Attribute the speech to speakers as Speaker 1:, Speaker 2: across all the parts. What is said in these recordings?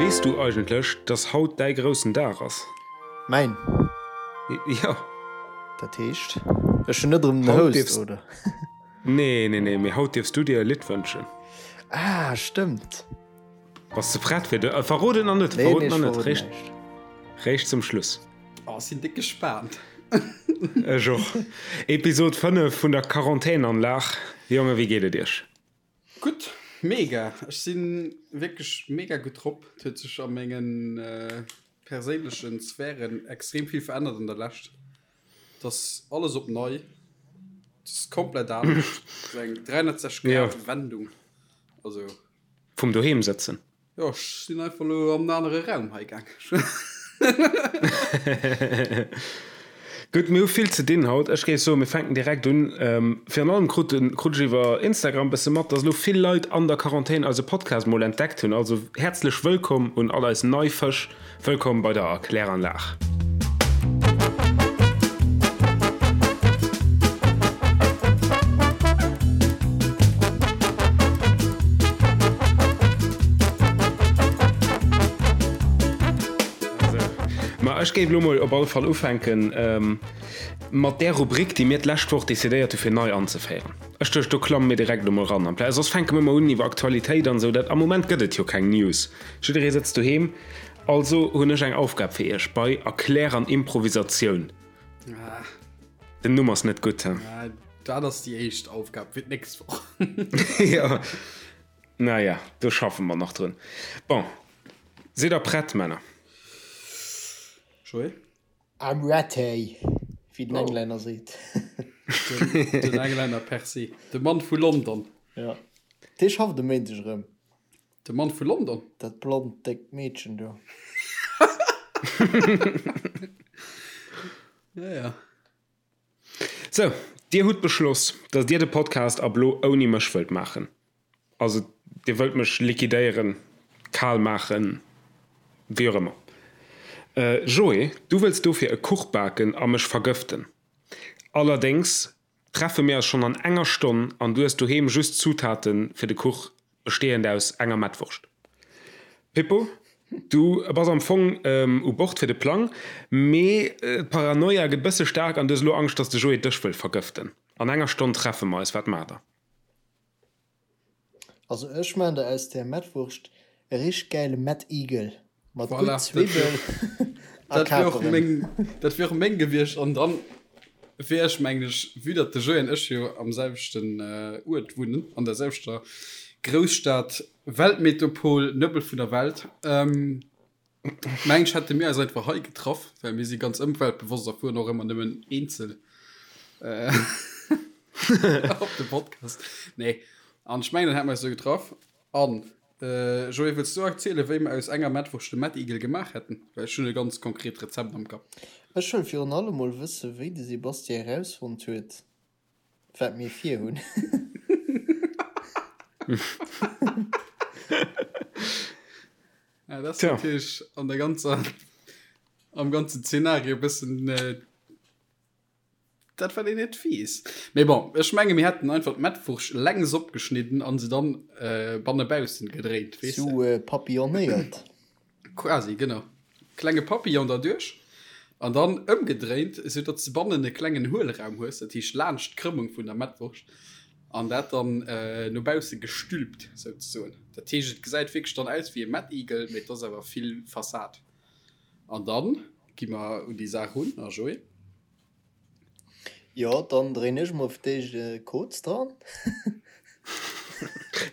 Speaker 1: Weess du eigentlech, dass haut däi groussen Dag ass?
Speaker 2: Mäin?
Speaker 1: Jo.
Speaker 2: Dat heescht, ech hunn net erëm den Host, oder?
Speaker 1: Nee, nee, nee, mee haut dierfs du dir e Lidd wënschen.
Speaker 2: Ah, stëmmt.
Speaker 1: Bass de prett fir de. Verrot et nach net, verrot et nach net. Réischt, réischt zum Schluss.
Speaker 3: Oh, ech sinn déck gespaant.
Speaker 1: Ech och. Episod 5 vun der Quarantänanlag. Jongen, wéi geet et iech?
Speaker 3: Gutt, mega. Ech si wierklech mega gutt drop. Et huet sech a mengen perséinlechen Sphären extrem vill verännert an der Lescht. Et ass alles op nei. Et ass komplett anescht. Et ass eng 360 Grad Wendung. Also.
Speaker 1: Vum doheem sëtzen.
Speaker 3: Jo, ech sinn einfach elo an en anere Raum hei gaang.
Speaker 1: Gutt, mir hu vill ze dinn haut. Ech géif soen, mir fänken direkt un. Virun allem krut krut ech iwwer Instagram bësse mat, dass elo vill Leit an der Quarantän eise Podcast mol entdeckt hunn. Also häerzlech wëllkomm un all eis nei Fësch. Wëllkomm bei der Erkläranlag. Ma ech géif elo mol op alle Fall ufänken mat där Rubrik, déi mir d'lescht Woch decidéiert hu fir nei anzeféieren. Ech duecht, do klamme mir direkt elo mol ran. Amplaz soss fänke mir ëmmer un iwwer Aktualitéit an esou. Dat am Moment gëtt et jo keng News. Jidderee sëtzt doheem. Also hunn ech eng Aufgab fir iech bei Erklär an Improvisatioun. Den Numm ass net gutt, he?
Speaker 3: Dat ass déi éischt Aufgab fir d'nächst Woch.
Speaker 1: Jo, naja, do schaffe mer nach drun. Bon, sidd der prett, Männer?
Speaker 3: Joé?
Speaker 2: I'm ready, wéi den Englänner seet.
Speaker 3: Den Englänner per se. De Mann vu London.
Speaker 2: Jo, dee schafft e Méindeg erëm.
Speaker 3: De Mann vu London?
Speaker 2: Dat blond, déckt Meedchen do.
Speaker 3: Ja, ja.
Speaker 1: Sou, dir hutt beschloss, dass dir de Podcast ab lo ouni mech wëllt maachen. Also, dir wëllt mech liquidéieren, kal maachen, wéi och ëmmer. Joé, du wëlls dofir e Kuch baken a mech vergëften. Allerdéngs treffe mir eis schonn an enger Stonn an du hues doheem just d'Zutaten fir de Kuch, bestehend aus enger Mettwurscht. Pippo, du bass am Fong u Bord fir de Plang, mee d'Paranoia gëtt bësse staark an du hues elo Angscht, dass de Joé dech wëll vergëften. An enger Stonn treffe mer eis, wat maacht der?
Speaker 2: Also ech maan der aus der Mettwurscht e richteg gäile Mettigel mat gutt Zwibbel
Speaker 3: a Kaperen. Dat wier och meng gewiescht an dann wier ech mengen ech, vue datt de Joé an ech jo am selwechten Uert wunnen, an der selwechter Grousstad, Weltmetopol, Nëbbel vun der Welt, Mengen ech hätte mir eis einfach hei getraff, well mir si ganz ëmweltbewosst a fueren och ëmmer nëmmen eenzel op de Podcast. Nee, an ech mengen dann hätte mer eis do getraff. An Joé, wëlls du erzielen, wéi mer aus enger Mettwurscht de Mettigel gemaach hätten? Well ech hunn e ganz konkret Rezept am Kapp.
Speaker 2: Ech wëll virun allem mol wëssen, wéi de Sebastien erausfonnt huet, Wat mir vir hunn.
Speaker 3: Ja, dat ass natierlech an der ganzer, am ganzen Zeenario e bëssen dat, wat een net weess. Mee bon, ech menge mir hätten einfach d'Mettwurscht längs opgeschnidden an se dann bannebaussen gedréint,
Speaker 2: weess de. Sou papillonnéiert.
Speaker 3: Quasi, genau. Klenge Papillon derduerch an dann ëmgedréint, esou datt s de bannen e klengen Huelraum hues, dat heescht laanscht d'Krëmmung vun der Mettwurscht, an dat dann no bausse gestülpt souzesoen. Dat heescht, et gesäit wierklech dann aus wéi e Mettigel, mee et ass awer vill Fassad. An dann gi mer un déi Saach run. A Joé?
Speaker 2: Jo, dann dréin ech mol fir d'éischt e Koz dran.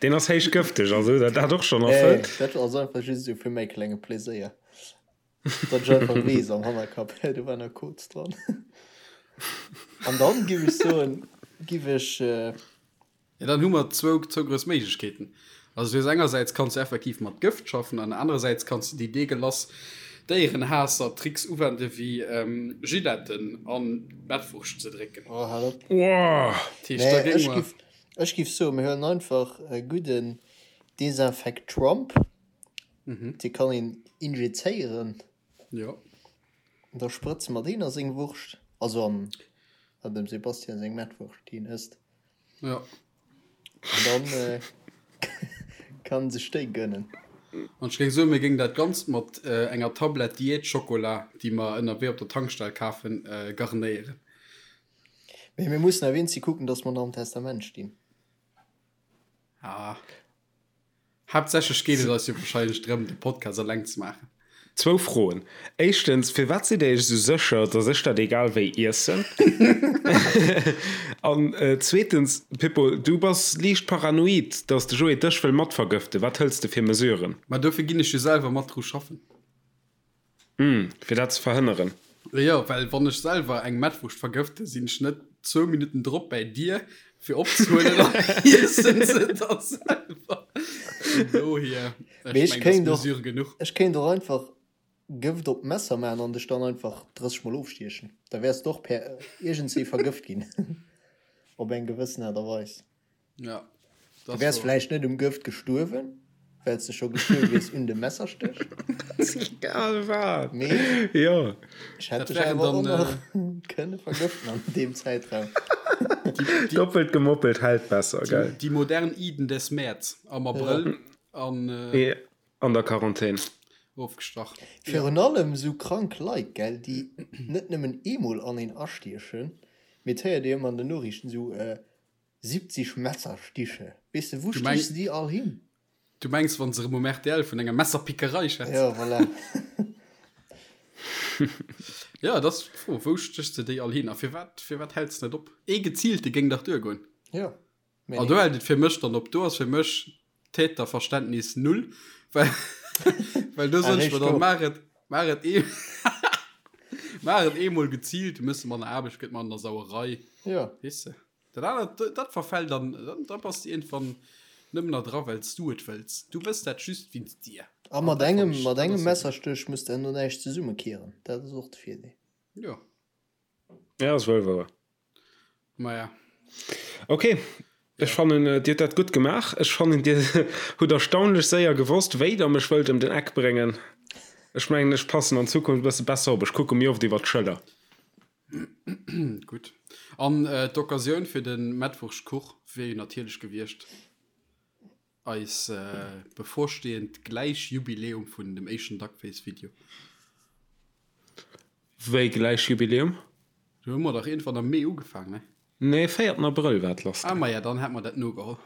Speaker 1: Deen ass héich gëfteg, also huet der dat och schonn erfëllt?
Speaker 2: Nee, dat ass einfach just esou fir mäi klenge Pleséier. Datt ech einfach weess am Hannerkapp, hä, do war nach Koz dran. An dann giff ech soen, giff ech.
Speaker 3: Jo, dann hu mer zwou, zwou grouss Méiglechkeeten. Also du hues engersäits kanns du effektiv mat Gëft schaffen an anerersäits kanns du déi deegelass Déierenhaasser-Tricks uwende wéi Giletten an d'Mettwurscht ze drécken.
Speaker 2: Oh, hal op.
Speaker 1: Woah!
Speaker 3: Dat heescht, da
Speaker 2: Nee,
Speaker 3: géinge
Speaker 2: ech
Speaker 3: mer.
Speaker 2: giff, ech giff soen, mir huelen einfach e gudden Desinfectrump, dee kann een injizéieren.
Speaker 3: Jo.
Speaker 2: An da sprëtze mer deen a seng Wurscht, also an, an dem Sebastian seng Mettwurscht, déi en ësst.
Speaker 3: Ja.
Speaker 2: An dann äh, kann sech déi gönnen.
Speaker 3: An ech géing soen, mir géingen dat Ganzt mat enger Tablett Diät-Schokola, déi mer ënnerwee op der Tankstell kafen, garnéieren.
Speaker 2: Mee mir mussen awer eenzi kucken, dass mer nach am Testament stinn.
Speaker 3: Ah. Haaptsächlech geet et eis jo wahrscheinlech drëm, de Podcast eleng ze maachen.
Speaker 1: Zwou Froen. Éischtens, firwat sidd Dir Iech esou sécher, dass ech dat egal wéi iessen? An zweetens, Pippo, du bass liicht paranoid, dass de Joé dech wëll matvergëften. Wat hëls de fir Mesuren?
Speaker 3: Ma dofir ginn ech jo selwer mat dru schaffen.
Speaker 1: Hm, fir dat ze verhënneren.
Speaker 3: Jo, well wann ech selwer eng Mettwurscht vergëfte, sinn ech net zwou Minutten drop bäi dir, fir opzehuelen an iessen se da selwer. Vun dohier, ech
Speaker 2: Mee ech
Speaker 3: mengen, dat ass
Speaker 2: kéint och,
Speaker 3: Mesure genuch.
Speaker 2: ech kéint och einfach Gëft op d'Messer maachen an dech dann einfach 30 mol ofstiechen. Da wäers de och per iergendswéi vergëft ginn. Op eng gewëssen Aart a Weis.
Speaker 3: Ja,
Speaker 2: Du wäers vläicht net um Gëft gestuerwen, well s de scho gestuerwe wiers un dem Messerstéch.
Speaker 1: Egal wat.
Speaker 2: Mee
Speaker 1: jo.
Speaker 2: Ech hätt dech awer och nach kënne vergëften an deem Zäitraum.
Speaker 1: Doppelt gemoppelt hält besser, gell?
Speaker 3: Déi modern Iden des Mäerz am Abrëll an.
Speaker 1: An der Quarantän.
Speaker 3: Ofgestach.
Speaker 2: Virun allem sou krank Leit, gell, déi net nëmmen eemol an een astiechen, mee et héiert ee ëmmer an den Noriichten sou, 70 Messerstiche, weess de, wou stichs de déi all hin?
Speaker 3: Du mengs, wann se erëm um rtl vun enger Messerpickerei schwätzen?
Speaker 2: Jo, voilà.
Speaker 3: Jo, dat ass d'Fro, wou stéchs de déi all hin a firwat, firwat häls de net op? Ee geziilte géing dach duergoen.
Speaker 2: Jo,
Speaker 3: mee. An do hält et fir mech dann op. Do ass fir mech Täterverständnis null, well, well do soen ech mer dann, maach et, maach et ee, maach et eemol geziilt, du méchs manner Aarbecht, gëtt manner Sauerei.
Speaker 2: Jo.
Speaker 3: Weess de? Dat anert, dat verfällt dann, da bass de iergendwann nëmmen nach dra well s du et wëlls. Du wëlls dat just wéinst dir.
Speaker 2: A mat engem, mat engem Messerstéch muss de herno näischt zesummekieren. Dat ass och de Virdeel.
Speaker 3: Jo.
Speaker 1: Ja, ass wuel wouer.
Speaker 3: Maja.
Speaker 1: Ok, ech fannen, dir hutt dat gutt gemaach. Ech fannen, dir hutt erstaunlech séier gewosst, wéi der mech wëllt ëm den Eck bréngen. Ech mengen, ech passen an Zukunft e bësse besser op. Ech kucke méi oft iwwer d'Schëller.
Speaker 3: Gutt. An d'Occasioun fir de Mettwurschtkuch wier jo natierlech gewiescht eis bevorstehend Gläichjubiläum vun dem éischten Duckface-Video.
Speaker 1: Wéi Gläichjubiläum?
Speaker 3: Do hu mer dach iergendwann am Mee ugefaang, ne?
Speaker 1: Nee, véierten Abrëll war et lass
Speaker 3: Ah, maja, dann hätt mer dat nogeholl.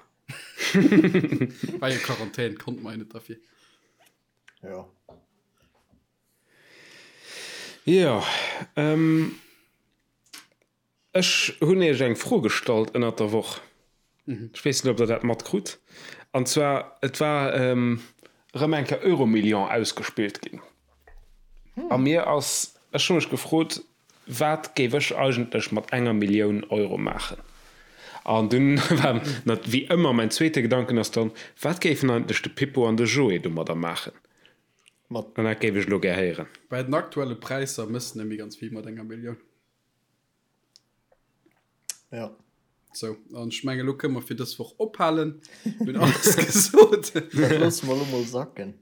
Speaker 3: War jo Quarantän, konnte mer jo net derfir.
Speaker 2: Jo.
Speaker 1: Jo, ech hunn Iech eng Fro gestallt ënnert der Woch. Ech weess net, ob Der dat matkrut. An zwar, et war erëm eng Kéier Euromillion ausgespillt ginn. A mir ass, ech hu mech gefrot, Wat géif ech eigentlech mat enger Millioun Euro maachen? An dunn war wéi ëmmer mäin zweete Gedanken ass dann, Wat géifen eigentlech de Pippo an de Joé domadder maachen?
Speaker 2: Mat.
Speaker 1: An dat géif ech elo gär héieren.
Speaker 3: Bei den aktuelle Präisser mëss de net méi ganz vill mat enger Millioun.
Speaker 2: Ja.
Speaker 3: Sou, an ech mengen, elo kënne mer fir dës Woch ophalen. Mir hunn alles gesot.
Speaker 2: Dat loosse mer elo mol sacken.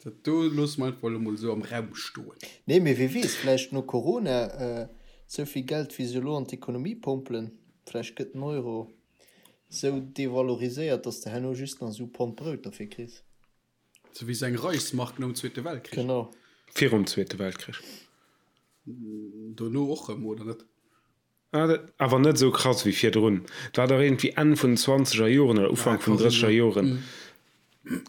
Speaker 3: Dat do loosse mer einfach elo mol esou am Raum stoen.
Speaker 2: Nee, mee wie weess, vläicht no Corona, esou vill Geld, wéi se elo an d'Ekonomie pompelen, vläicht gëtt den Euro esou devaloriséiert, datt s de herno just nach esou Pond Brout derfir kriss.
Speaker 3: Sou wéi seng Reichsmark nom Zweete Weltkrich.
Speaker 2: Genau.
Speaker 1: Virum Zweete Weltkrich.
Speaker 3: Dono och rëm, oder net?
Speaker 1: Ah, dat awer net esou krass wéi virdrun. Et war dach iergendwéi Enn vun den zwanzeger Joren oder Ufank vun den drësseger Joren,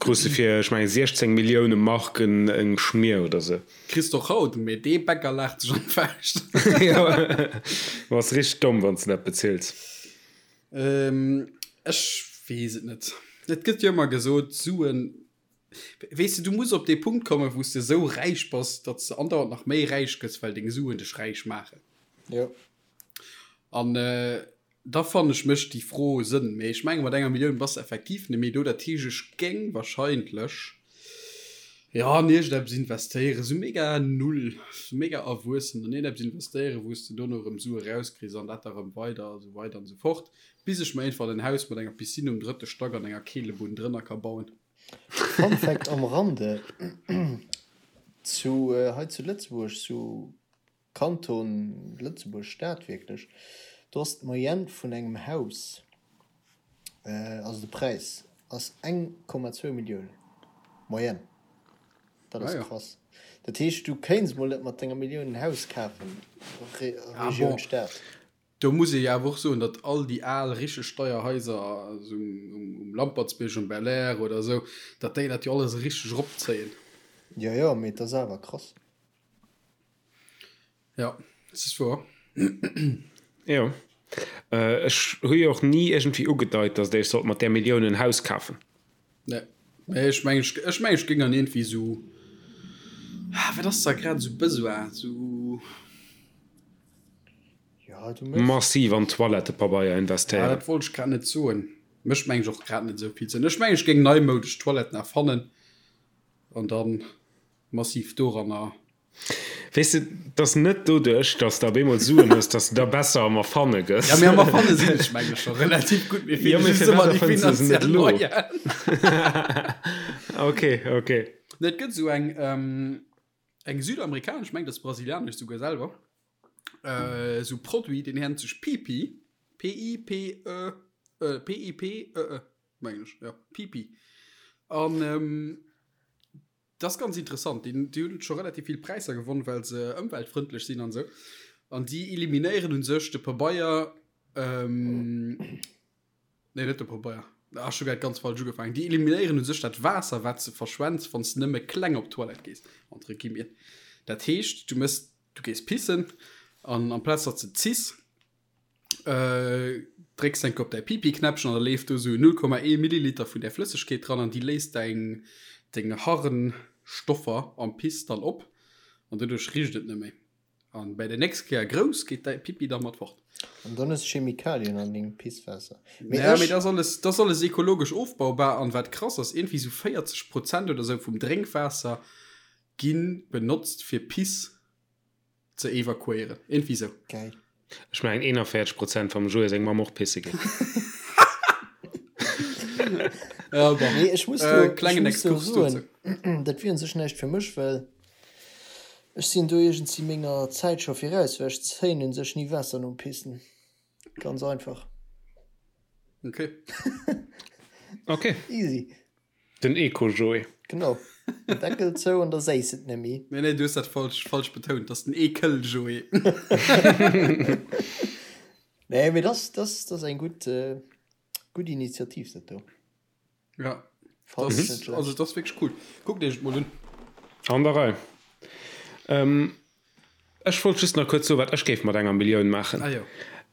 Speaker 1: krus de fir, ech mengen, 16 Millioune Mark eng Schmier oder sou.
Speaker 3: Kriss de och haut, mee dee Bäcker laacht sech an d'Fauscht.
Speaker 1: Jo, bass richteg domm, wann s de dat bezills.
Speaker 3: Ech weess et net. Et gëtt jo ëmmer gesot, Suen, weess de, du muss op dee Punkt kommen, wou s de esou räich bass, datt s de andauernd nach méi räich gëss, well deng Suen dech räich maachen.
Speaker 2: Jo.
Speaker 3: An da fannen ech, mécht déi Fro Sënn. Mee ech menge mat enger Millioun bass de effektiv net méi do. Dat heescht, ech géing wahrscheinlech, jo, an iergendeppes investéieren, esou mega null, esou mega erwuessen, an iergendeppes investéieren, wou s de dono erëm Sue rauskriss an dat da erëm weider a sou weider an esou fort, bis ech mer iergendwann en Haus mat enger Piscine um drëtte Stack an enger Keelebunn drënner ka bauen.
Speaker 2: Fun Fact am Rande, Zu hei zu Lëtzebuerg, zu Kanton Lëtzebuerg Stad wierklech, do ass d'Moyenne vun engem Haus, also de Präis ass 1,2 Millioun. Moyenne. Dat ass ah, ja. krass. Dat heescht, du kéints mol net mat denger Millioun en Haus kafen, Re ah,
Speaker 3: Regioun bon. Stad. Do muss ee jo awer och soen, datt all déi al richteg deier Haiser also um, um Lampertsbierg, um Belair oder esou, datt déi dat jo alles richteg eropzéien.
Speaker 2: Jo, jo, mee et ass awer krass.
Speaker 3: Ja, dat ass wouer.
Speaker 1: Jo. Ech hu jo och ni iergendwéi ugedeit, datt Dir sollt mat där Millioun en Haus kafen.
Speaker 3: Nee, mee ech mengen, ech mengen, ech géing an iergendwéi esou, ah, wat ass da grad esou Besoin, esou.
Speaker 1: Ja, du méchs. Massiv an Toilettepabeier
Speaker 3: Ah,
Speaker 1: investéieren.
Speaker 3: dat wollt ech grad net soen. Mécht mengen ech och grad net esou vill Sënn. Ech mengen, ech géing neimoudesch Toiletten erfannen an dann massiv doranner.
Speaker 1: Weess de, 't ass net doduerch, datt s de op eemol Suen hues, datt s de da besser am Erfanne gëss.
Speaker 3: Ja, mee am Erfanne sinn ech mengen ech scho relativ gutt, mir
Speaker 1: Ja,
Speaker 3: feele
Speaker 1: mee
Speaker 3: just
Speaker 1: firwat
Speaker 3: ëmmer déi
Speaker 1: erfënns de se net
Speaker 3: finanziell
Speaker 1: elo?
Speaker 3: Moyenen.
Speaker 1: Ok, ok.
Speaker 3: Nee, et gëtt esou eng, eng südamerikanesch, ech mengen, dat ass brasilianesch souguer selwer, esou Produit, deen nennt sech Pipi, P-I-P-E, P-I-P-E-E, mengen ech, jo, Pipi. An dat ass ganz interessant, déi, déi hunn scho relativ vill Präisser gewonn, well se ëmweltfrëndlech sinn an esou. An déi eliminéieren u sech de Pabeier, Nee, net de Pabeier. Ah, ech hu grad ganz falsch ugefaangen. Déi eliminéieren u sech dat Waasser, wat s de verschwends, wann s de nëmme kleng op d'Toilette gees, entre guillemets. Dat heescht, du mëss, du gees pissen an amplaz datt s de ziss, drécks enke op däi Pipi-Knäppchen an da leeft do sou 0,1 Milliliter vun där Flëssegkeet dran an déi léist däin, deng Harnstoffer am Piss dann op an doduerch richt et net méi. An bäi der nächst Kéier grouss geet däi Pipi da mat fort.
Speaker 2: An dann hues Chemikalien an dengem Pisswaasser.
Speaker 3: Mee ja, mee dat ass alles, dat ass alles ekologesch ofbaubar an wat krass ass, iergendwéi sou 40 Prozent oder sou vum Drénkwaasser gi benotzt fir Piss ze evakuéieren. Iergendwéi sou.
Speaker 2: Geil.
Speaker 1: Ech mengen 41 Prozent vum Joé seng Mamm och pisse ginn.
Speaker 3: Ja, bon.
Speaker 2: Nee, ech muss
Speaker 3: Äh,
Speaker 2: do, ech
Speaker 3: klengen
Speaker 2: muss do
Speaker 3: Exkurs
Speaker 2: soen,
Speaker 3: dozou.
Speaker 2: dat wier un sech näischt fir mech, well ech sinn do iergendsi menger Zäit scho viraus, well ech zéien un sech ni Waasser nom Pissen. Ganz einfach.
Speaker 3: Okay.
Speaker 1: Okay.
Speaker 2: Easy.
Speaker 1: Den Eco-Joé.
Speaker 2: Genau. Den Deckel zou an da séiss et nemmi.
Speaker 3: Nee, nee, du hues dat falsch, falsch betount. Dat ass den Ekel-Joé.
Speaker 2: Nee, mee das, das, das eng gutt, äh, gutt Initiativ, dat do.
Speaker 3: Ja.
Speaker 2: Fand
Speaker 3: Das,
Speaker 2: ich net schlecht.
Speaker 3: also, das ass wierklech cool. Kuckt iech et mol un.
Speaker 1: An der Rei. Ähm, ech wollt just nach kuerz soen, wat ech géif mat enger Millioun maachen.
Speaker 3: Ah jo.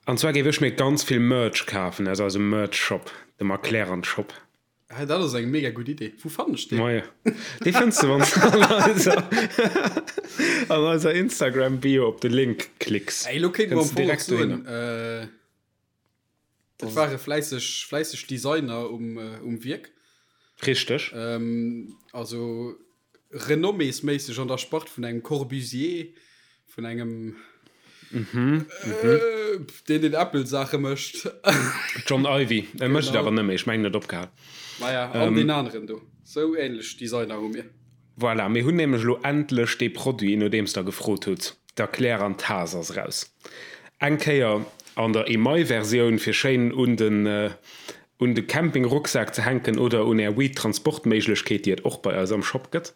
Speaker 1: An zwar géif ech mir ganz vill Merch kafen aus eisem Merch-Shop, dem Erklärern-Shop.
Speaker 3: Hey, dat ass eng mega gutt Idee. Wou fannen ech deen?
Speaker 1: Moie. Dee fënns de, wann s de an eiser, an eiser Instagram-Bio op de Link klicks.
Speaker 3: Ey, lo kéinte mer am
Speaker 1: Kënns de
Speaker 3: Fong och
Speaker 1: direkt
Speaker 3: soen,
Speaker 1: dohinner.
Speaker 3: äh, et ware fläisseg, fläisseg Designer um, um Wierk.
Speaker 1: Richteg.
Speaker 3: Ähm, also renomméesméisseg an der Spart vun engem Corbusier, vun engem deen deen Apple-Saache mécht.
Speaker 1: John Ivey. E mécht et awer net méi, ech mengen, en huet opgehal.
Speaker 3: Maja, an deen aneren do. Sou änlech Designer hu mir.
Speaker 1: Voilà, mir hunn nämlech elo endlech dee Produit, nodeems Der gefrot hutt. D'Erklär an d'Taass ass eraus. Eng Kéier an der Email-Versioun, fir schéin un den un de Camping-Rucksak ze hänken oder un är Weed-Transportméiglechkeet, déi et och bei eis am Shop gëtt.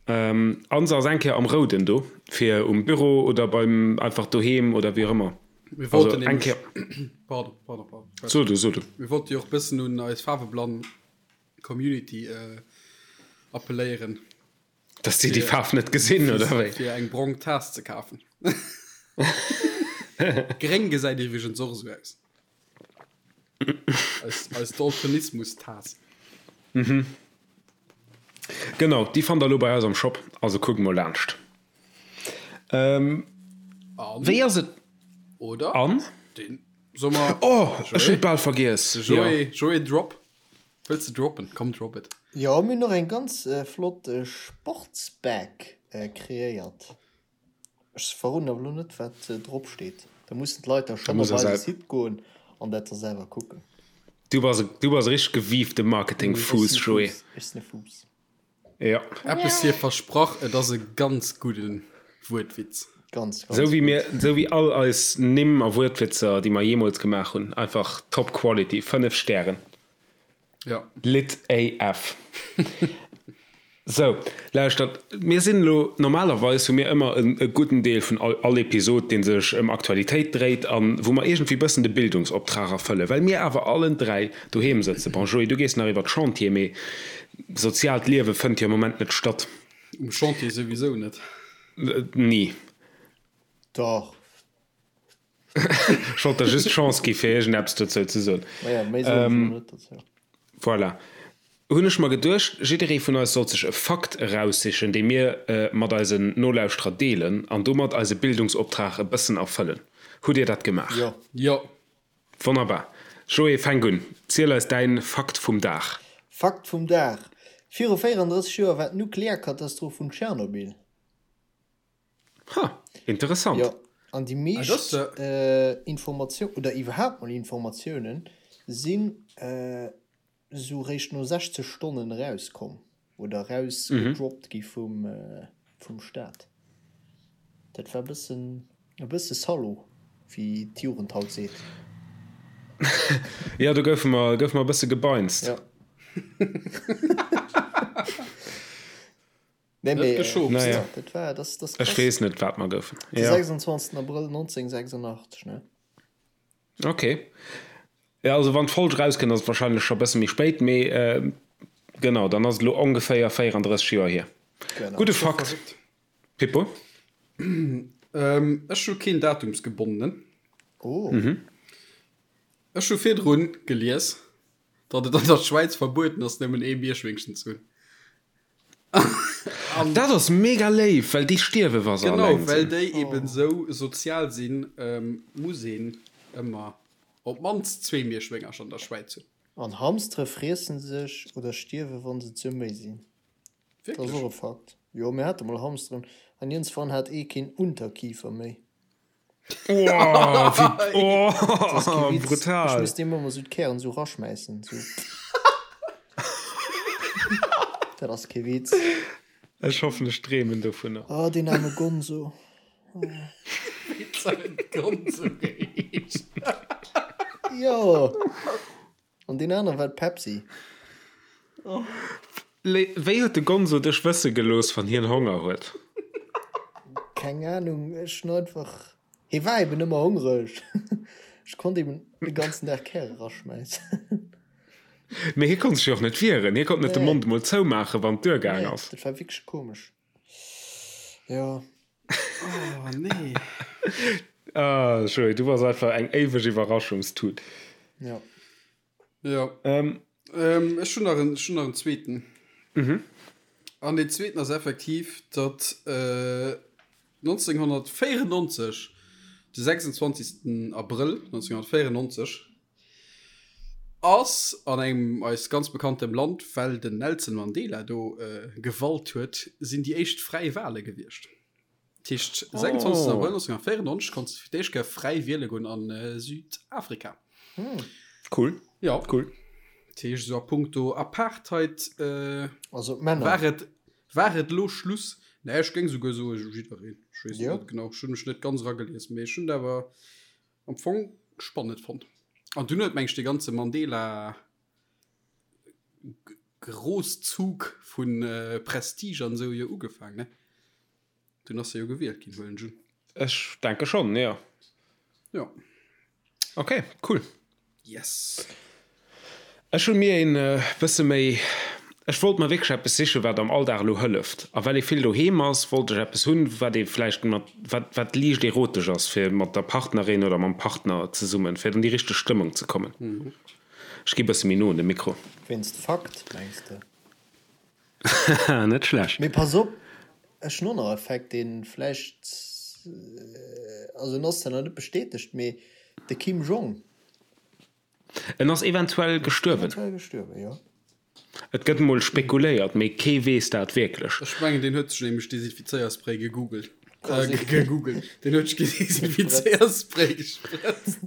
Speaker 1: An se ass eng Kéier am Rouden do, fir um Büro oder beim einfach doheem oder wéi och ëmmer.
Speaker 3: Mir
Speaker 1: Also
Speaker 3: wollten
Speaker 1: eng
Speaker 3: nämlech,
Speaker 1: Kéier.
Speaker 3: pardon, pardon, pardon.
Speaker 1: So du, so du.
Speaker 3: Mir wollte jo och bëssen un eis faarweblann Community appelléieren.
Speaker 1: Dass déi déi Faarf net gesinn, oder wéi?
Speaker 3: Fir eng brong Taass ze kafen. Gréng gesäit iwwregens och esou aus. Eis, eis Daltonismus-Taass.
Speaker 1: Mhm. Genau, déi fannt der elo bei eis am Shop, also kuckt mol laanscht. Ähm,
Speaker 3: An,
Speaker 1: wéi ass et?
Speaker 3: oder?
Speaker 1: An?
Speaker 3: Den, soll mer.
Speaker 1: Oh, ech hunn et bal vergiess.
Speaker 3: De Joé, Joé Drop. Wëlls de droppen? Komm, drop it.
Speaker 2: Jo, mir hunn och eng ganz flott Sportsbag kreéiert. Ech verroden awer elo net wat drop steet. Da mussen d'Leit da schonn op eise Site goen an dat da selwer kucken.
Speaker 1: Du bass du bass e richteg gewiefte Marketing-Fuuss, Joé.
Speaker 2: Ech sinn e Fuuss.
Speaker 1: Jo.
Speaker 3: Eppes hier versprach, et ass e ganz gudde Wuertwitz.
Speaker 2: Ganz, ganz
Speaker 1: Sou wéi
Speaker 2: gutt.
Speaker 1: mir, sou wéi all eis Nimm a Wuertwitzer, déi mer jeemools gemaach hunn. Einfach top quality, 5 Stären.
Speaker 3: Ja.
Speaker 1: Lit AF. Sou, lauschtert, mir sinn elo, normalerweis hu mir ëmmer e gudden Deel vun all all Episod, dee sech ëm Aktualitéit dréit an wou mer iergendwéi bëssen de Bildungsoptrag erfëllen. Well mir awer allen 3 doheem sëtzen, bon Joé, du gees nach iwwer d'Chantier, mee soziaalt Liewe fënnt jo am Moment net statt.
Speaker 3: Um Chantier souwisou net.
Speaker 1: Ni.
Speaker 2: Dach.
Speaker 1: Ech wollt der just d'Chance gi fir iergendeppes dozou ze soen.
Speaker 2: Maja, méi soen ech elo net dozou.
Speaker 1: Voilà. Hunn ech mer geduecht, jidderee vun eis sollt sech e Fakt eraussichen, dee mir mat eisen Nolauschterer deelen an domat eise Bildungsoptrag e bëssen erfëllen. Hutt Dir dat gemaach?
Speaker 2: Jo.
Speaker 3: Jo.
Speaker 1: Wonnerbar. Joé, fänk un. Ziel eis däin Fakt vum Dag.
Speaker 2: Fakt vum Dag, Viru 34 Joer war d'Nuklearkatastroph vun Tschernobyl.
Speaker 1: Ha, interessant.
Speaker 2: Jo, an déi meescht Informatioun, oder iwwerhaapt mol Informatiounen, sinn esou réischt no 60 Stonnen erauskomm oder erausgedroppt gi vum, vum Staat. Dat war e bëssen, e bësse Salaud, wéi d'Jugend haut seet.
Speaker 1: Jo, do goufe mer, goufe mer e bësse gebeinst.
Speaker 2: Jo. Nee,
Speaker 3: Net
Speaker 2: mee,
Speaker 3: geschopt.
Speaker 1: Naja.
Speaker 2: ja, dat war, das, das
Speaker 1: Ech
Speaker 2: krass.
Speaker 1: weess net, wat mer goufen.
Speaker 2: De
Speaker 1: Ja.
Speaker 2: 26. Abrëll 1986, ne?
Speaker 1: Okay. Ja, also wann d'Folg rauskënnt, ass et wahrscheinlech scho bësse méi spéit, mee äh, genau, dann ass et elo ongeféier 34 Joer hier.
Speaker 2: Genau.
Speaker 1: Gudde Fakt,
Speaker 3: Verrückt.
Speaker 1: Pippo.
Speaker 3: Ähm, ech hu keen datumsgebondenen.
Speaker 2: Oh.
Speaker 3: Ech hu virdrun gelies, datt et an der Schwäiz verbueden ass, nëmmen ee Mierschwéngchen ze hunn.
Speaker 1: An dat ass mega léif, well déi stierwe wa se
Speaker 3: Genau,
Speaker 1: alleng
Speaker 3: well
Speaker 1: sinn.
Speaker 3: déi eben esou sozial sinn, muss een ëmmer op d'mannst zwee Mierschwéngercher an der Schwäiz hunn.
Speaker 2: An Hamstere friessen sech oder stierwe wann se ze méi sinn. Dat ass
Speaker 3: Wierklech?
Speaker 2: och e Fakt. Jo, mir hate mol Hamsteren an iergendswann hat ee keen Unterkiefer méi.
Speaker 1: Oh, wéi, oh,
Speaker 2: Das ass kee Witz. Ech
Speaker 1: brutal.
Speaker 2: misst deem ëmmer sou d'Kären sou raschmäissen, sou. Dat ass kee Witz.
Speaker 1: Ech hoffen, ech dreemen dovunner.
Speaker 2: Oh, deen aarme Gonzo.
Speaker 3: Wéi huet Gonzo geheescht?
Speaker 2: Jo. An deen anere war d'Pepsi.
Speaker 1: Wéi huet de Gonzo dech wësse gelooss, wann hien Honger huet?
Speaker 2: Keng Ahnung, ech hunn einfach, hie war eben ëmmer hongreg. Ech konnt eben de ganzen Dag Käre raschmäissen.
Speaker 1: Mee hie konnt sech jo och net wieren, hie konnt net de Mond emol zoumaachen, wann et duergaang
Speaker 2: Nee,
Speaker 1: ass.
Speaker 2: dat war wierklech komesch. Jo.
Speaker 3: Oh nee.
Speaker 1: Ah, Joé, du bass einfach eng éiweg Iwwerraschungstut.
Speaker 2: Jo.
Speaker 3: Ja.
Speaker 1: Ähm.
Speaker 3: Ähm, ech hunn nach en, ech hunn nach en zweeten. Mhm. An deen zweeten ass effektiv, datt äh, 1994, de 26. Abrëll 1994, ass an engem eis ganz bekanntem Land, well den Nelson Mandela do gewalt huet, sinn déi éischt fräi Wale gewiescht. Dat heescht, 26. Abrëll 1994 konns de fir d'éischt Kéier fräi wiele goen a Südafrika.
Speaker 1: Cool.
Speaker 3: Ja.
Speaker 1: Cool.
Speaker 3: Dat heescht, esou a punkto Apartheid
Speaker 2: Also d'Männer.
Speaker 3: war et, war et elo Schluss. Nee, ech géing esouguer soe jiddereen. Ech weess
Speaker 2: Jo.
Speaker 3: net genau, ech hunn mech net ganz eragelies, mee ech hunn et awer Am Fong spannend fonnt. An dunn huet meng ech de ganze Mandela Großzug vun Prestige an esou jo ugefaang ne? Dunn ass e jo gewielt ginn, huelen ech un.
Speaker 1: Ech denke schonn, jo.
Speaker 3: Jo.
Speaker 1: Ok, cool.
Speaker 3: Yes.
Speaker 1: Ech hu mir een bësse méi, ech wollt mer wierklech eppes sichen, wat am Alldag elo hëlleft. A well ee vill doheem ass, wollt ech eppes hunn, wat ee vläicht mat, wat, wat liicht erotesch ass, fir mat der Partnerin oder mam Partner zesummen, fir an déi richteg Stëmmung ze kommen. Ech gi bësse méi no un de Mikro.
Speaker 2: Wéinst Fakt, mengs de?
Speaker 1: Haha, net schlecht.
Speaker 2: Mee pass op, ech hunn och nach e Fact, dee vläicht, also en ass zwar nach net bestätegt, mee de Kim Jong.
Speaker 1: En ass eventuell gestuerwen.
Speaker 2: Eventuell gestuerwen, jo.
Speaker 1: Et gëtt mol spekuléiert, mee kee weess dat wierklech.
Speaker 3: Ech mengen, deen huet sech nämlech Desinfizéierspray gegoogelt. Äh, gegoogelt. Deen huet sech Desinfizéierspray gesprëtzt.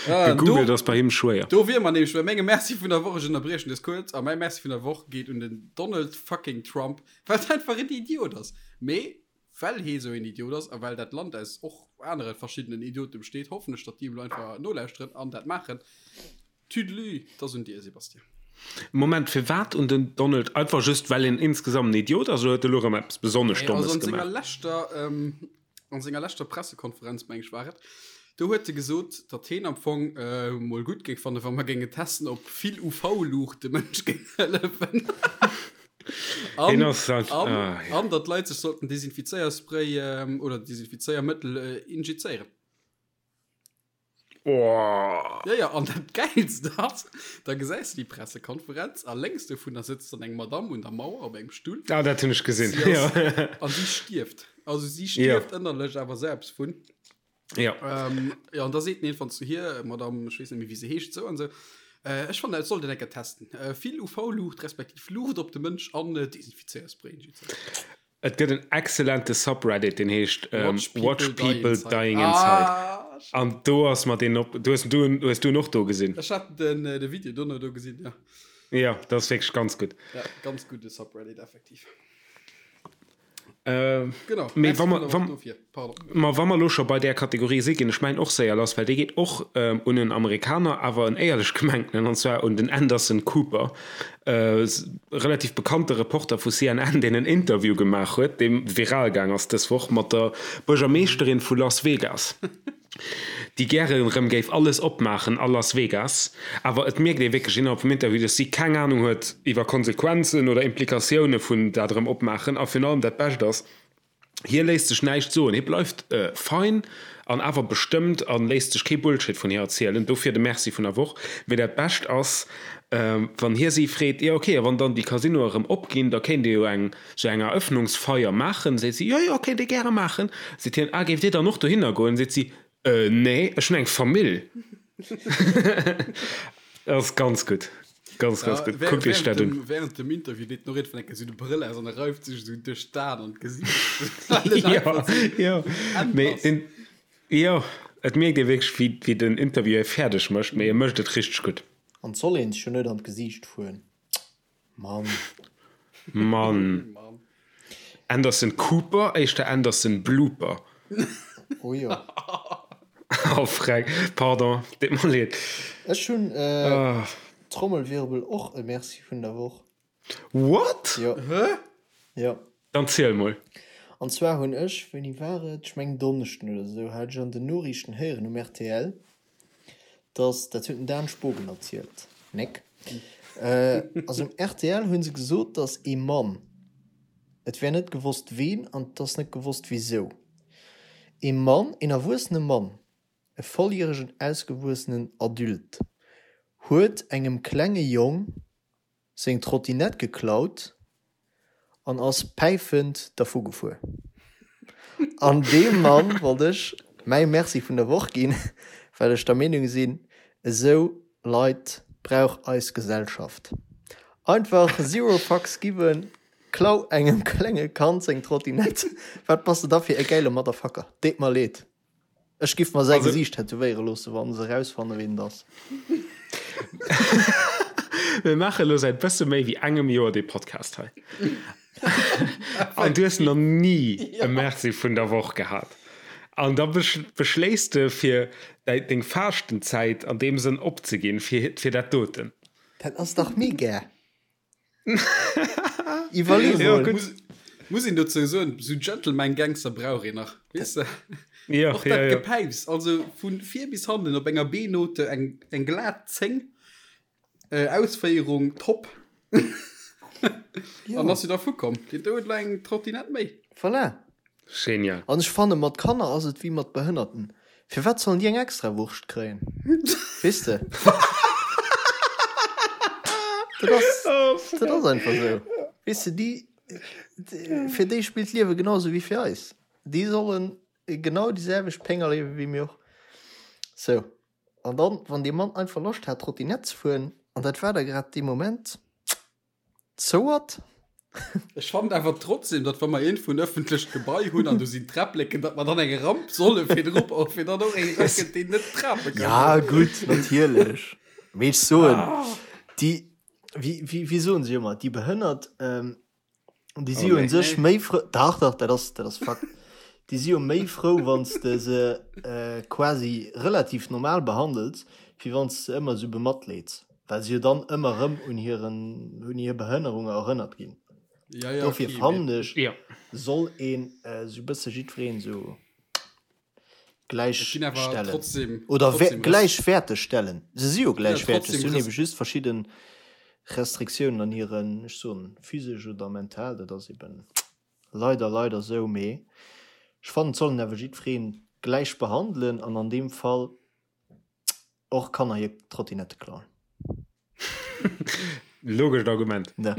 Speaker 3: Ah,
Speaker 1: Gegoogelt ass bei him schwéier.
Speaker 3: Do wier mer nämlech bei mengem Merci vun der Woch. Ech ënnerbriechen dës kuerz. A mäi Merci vun der Woch geet un den Donald fucking Trump, well et einfach en Idiot ass. Mee Well hee sou een Idiot ass a well dat Land aus och anere verschiddenen Idiote besteet, hoffen ech, datt déi elo einfach nolauschteren an dat maachen. Tüdelü, 't ass un dir, Sebastien.
Speaker 1: Moment, firwat un den Donald? Einfach just well en insgesamt en Idiot ass oder huet e lo erëm eppes besonnesch
Speaker 3: Nee, also
Speaker 1: Dommes
Speaker 3: an senger
Speaker 1: gemaach?
Speaker 3: leschter, ähm, an senger leschter Pressekonferenz, meng ech war et, do huet e gesot, datt heen am Fong äh, mol gutt géing fannen, wa mer géinge testen, ob vill UV-Luucht dem Mënsch géing hëllefen. An,
Speaker 1: Heen ass halt,
Speaker 3: an,
Speaker 1: ah, ja.
Speaker 3: an datt d'Leit sech sollten Desinfizéierspray ähm, oder Desinfizéiermëttel äh, injizéieren.
Speaker 1: Oh.
Speaker 3: Ja, ja, an dat Gäilst ass, da gesäis du déi Pressekonferenz a lénks dovunner sëtzt dann eng Madamm un der Mauer op engem Stull.
Speaker 1: Ah, dat hunn ech gesinn.
Speaker 3: Si ass,
Speaker 1: Ja.
Speaker 3: an si stierft. Also si
Speaker 1: Ja.
Speaker 3: stierft ënnerlech awer selbst vun.
Speaker 1: Ja.
Speaker 3: Ähm, ja, an da seet en irgendwann zu hir, Madamm, ech weess net méi, wéi se heescht, sou an sou, äh, ech fannen, et sollt een eng Kéier testen. Äh, vill UV-Luucht respektiv Luucht op de Mënsch an äh, Desinfizéierspray injizéieren.
Speaker 1: Et gëtt en excellente Subreddit, deen heescht
Speaker 3: Watch People,
Speaker 1: Watch People
Speaker 3: Die Inside.
Speaker 1: Dying Inside.
Speaker 3: Ah,
Speaker 1: An do ass mer deen op. Du hues du hues du en och do gesinn?
Speaker 3: Ech hat den, äh, de Video dono do gesinn, ja.
Speaker 1: Ja, dat ass wierklech ganz gutt.
Speaker 3: Ja, ganz gudde Subreddit, effektiv.
Speaker 1: Äh,
Speaker 3: Genau.
Speaker 1: Mee
Speaker 3: Merci
Speaker 1: wa mer,
Speaker 3: vun der
Speaker 1: wa,
Speaker 3: Woch dofir. Pardon.
Speaker 1: ma wa mer elo scho bei där Kategorie si ginn ech mäin och séier lass, well dee geet och ähm, un en Amerikaner, awer en éierlech gemengtenen, an zwar un den Anderson Cooper. Relativ bekannte Reporter vu CNN, deen en Interview gemaach huet, dee viral gaang ass dës Woch, mat der Buergermeeschterin vu Las Vegas, déi gäre rëm géif alles opmaachen a Las Vegas. Awer et mierkt ee wierklech innerhalb vum Interview, dass si keng Anung huet iwwer Konsequenzen oder Implikatioune vun dat erëm opmaachen. A virun allem dat Bescht ass, Hie léisst sech näischt soen, hie bleift fein an awer bestëmmt a léisst sech kee Bullshit vun hir erzielen. Dofir de Merci vun der Woch. Mee dat Bescht ass, wann hie si freet, Jo, ok, a wann dann déi Casinoe erëm opginn, da kéint Dir jo eng sou eng Eröffnungsfeier maachen. Seet si, Jo, jo, kéint ee gäre maachen. Seet hien, Ah, géift Dir dann och dohinner goen? Seet si, Äh, nee, ech hunn eng Famill. Dat ass ganz gutt. Ganz, ganz gutt. Kuckt iech dat un.
Speaker 3: Während dem Interview deet den och iergendwann eng Kéier sou de Brëll aus an e reift sech esou duerch d'Aen an d'Gesiicht.
Speaker 1: Ja, ja. Mee den, jo, et mierkt ee wierklech, wéi, wéi den Interview hie fäerdeg mécht, mee e mécht et richteg gutt.
Speaker 2: An 't soll een sech jo net an d'Gesiicht fueren. Mann.
Speaker 1: Mann. Anderson Cooper, éischter Anderson Blooper.
Speaker 2: Oh jo.
Speaker 1: Oh freck, pardon, deet mer leed.
Speaker 2: Ech hunn Trommelwirbel och e Merci vun der Woch.
Speaker 1: What?
Speaker 2: Jo.
Speaker 3: Hä?
Speaker 2: Jo.
Speaker 1: Dann ziel mol.
Speaker 2: An zwar hunn ech, wéini war et, ech mengen Donneschden oder esou, hat ech an den Noriichten héieren um rtl, dass, dat huet den Dan Spogen erzielt, néck, also um rtl hu se gesot, dass ee Mann, et wär net gewosst ween an et ass net gewosst wisou, ee Mann, een erwuessene Mann, e volljäregen ausgewuessenen Adulte, huet engem klenge Jong seng Trottinett geklaut an ass päifend dervu gefuer. An deem Mann wollt ech mäi Merci vun der Woch ginn, well ech der Meenung sinn, esou Leit brauch eis Gesellschaft. Einfach zero fucks given, klau engem klenge Kand seng Trottinett, wat bass de da fir e gäile Motherfucker? Deet mer leed. Ech giff mer säi Gesiicht tätowéiere loosse wann se erausfanne ween et ass.
Speaker 1: Mir maache lo säit bësse méi wéi engem Joer dee Podcast hei. An du hues nach ni e Merci vun der Woch gehat. An da beschléiss de fir deng Faaschtenzäit an deem Sënn opzeginn fir dat doten.
Speaker 2: Dat ass dach mega! Iwwerlee
Speaker 3: Ja,
Speaker 2: mol.
Speaker 3: gutt. Muss, muss een dozou soen, sou Gentleman Gangster brauch een nach, weess de?
Speaker 1: Ja,
Speaker 3: Och
Speaker 1: ja,
Speaker 3: dat
Speaker 1: ja.
Speaker 3: Gepäips, also vun vir bis hannen op enger B-Note eng, eng glat 10, äh, Ausféierung top.
Speaker 2: Ja.
Speaker 3: An ass jo dervu komm. Deen do huet elo eng Trottinett méi.
Speaker 2: Voilà.
Speaker 1: Genial.
Speaker 2: An ech fanne mat Kanner ass et wéi mat Behënnerten. Firwat sollen déi eng extra Wurscht kréien? Weess de? Dat ass, dat ass einfach esou. Weess de, déi, fir déi spillt d'Liewe genau esou wéi fir eis. Déi sollen genau déi selwecht Péng erliewe wéi mir och. Sou. An dann, wann dee Mann einfach Loscht hat Trottinett ze fueren, an dat war da grad dee Moment, Zouert?
Speaker 3: Ech fannen awer trotzdem, datt wa mer iergendwou en ëffentlecht Gebai hunn an do sinn Träppleken, datt mer dann eng Ramp solle virdru bauen, fir dann och een erakënnt, deen net trape kann.
Speaker 2: Ja, gutt, natierlech. Mee ech soen, déi, wéi, wéi, wéi soen se ëmmer, déi Behënnert, déi si jo un sech méi frou, dach, dach, dat ass, dat ass Fakt, déi si jo méi frou, wann s de se quasi relativ normal behandels, wéi wann s de se ëmmer esou bematleeds. Well se jo dann ëmmer erëm un hiren, un hir Behënnerunge erënnert ginn.
Speaker 3: Ja, ja,
Speaker 2: Dofir
Speaker 3: okay,
Speaker 2: fannen
Speaker 3: mee
Speaker 2: ech,
Speaker 1: Ja.
Speaker 2: soll een esou e bësse jiddwereen esou
Speaker 3: et ginn awer
Speaker 2: gläichstellen.
Speaker 3: trotzdem,
Speaker 2: Oder
Speaker 3: trotzdem Res
Speaker 2: gläichwäerteg stellen. Se si jo
Speaker 3: ja,
Speaker 2: gläichwäerteg,
Speaker 3: trotzdem
Speaker 2: se hunn
Speaker 3: Res
Speaker 2: ebe just verschidde Restriktiounen an hiren, ech soen, physesch oder mental, dat ass eben leider, leider esou. Mee ech fannen, et soll een awer jiddweree gläich behandelen an an deem Fall Och Kanner hir Trottinette klauen.
Speaker 1: Logescht Argument.
Speaker 2: Ne.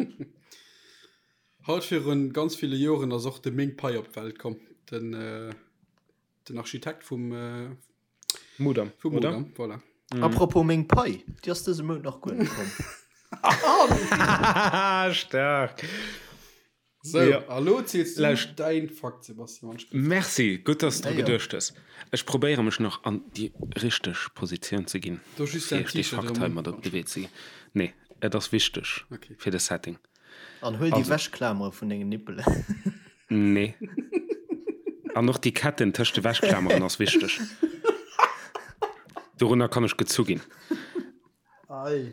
Speaker 3: Haut virun ganz ville Joren ass och de Ming Pei op d'Welt komm, den, den Architekt vum,
Speaker 1: Mudam,
Speaker 3: vum
Speaker 1: oder?
Speaker 3: Mudam, voilà.
Speaker 2: Apropos Ming Pei, déi ass dëse Mount nach guer net komm.
Speaker 1: Staark!
Speaker 3: So,
Speaker 1: Ja.
Speaker 3: a lo ziels du
Speaker 1: Lauscht.
Speaker 3: däin Fakt, Sebastian. Wann ich
Speaker 1: Merci, gutt, dass du
Speaker 2: Ja,
Speaker 1: dru
Speaker 2: ja.
Speaker 1: geduecht hues. Ech probéiere mech nach an déi richteg Positioun ze ginn,
Speaker 3: Do just
Speaker 1: fir
Speaker 3: däin
Speaker 1: iech dee
Speaker 3: T-Shirt
Speaker 1: Fakt
Speaker 3: erëm
Speaker 1: hei
Speaker 3: un.
Speaker 1: mat op de Wee ze ginn. Nee, et ass wichteg
Speaker 3: Okay.
Speaker 1: fir de Setting.
Speaker 2: An huel déi
Speaker 1: Also.
Speaker 2: Wäschklamere vun dengen Nippelen.
Speaker 1: Nee. An och déi Ketten tëscht de Wäschklameren ass wichteg. Dorunner kann ech gezu ginn.
Speaker 3: Ei.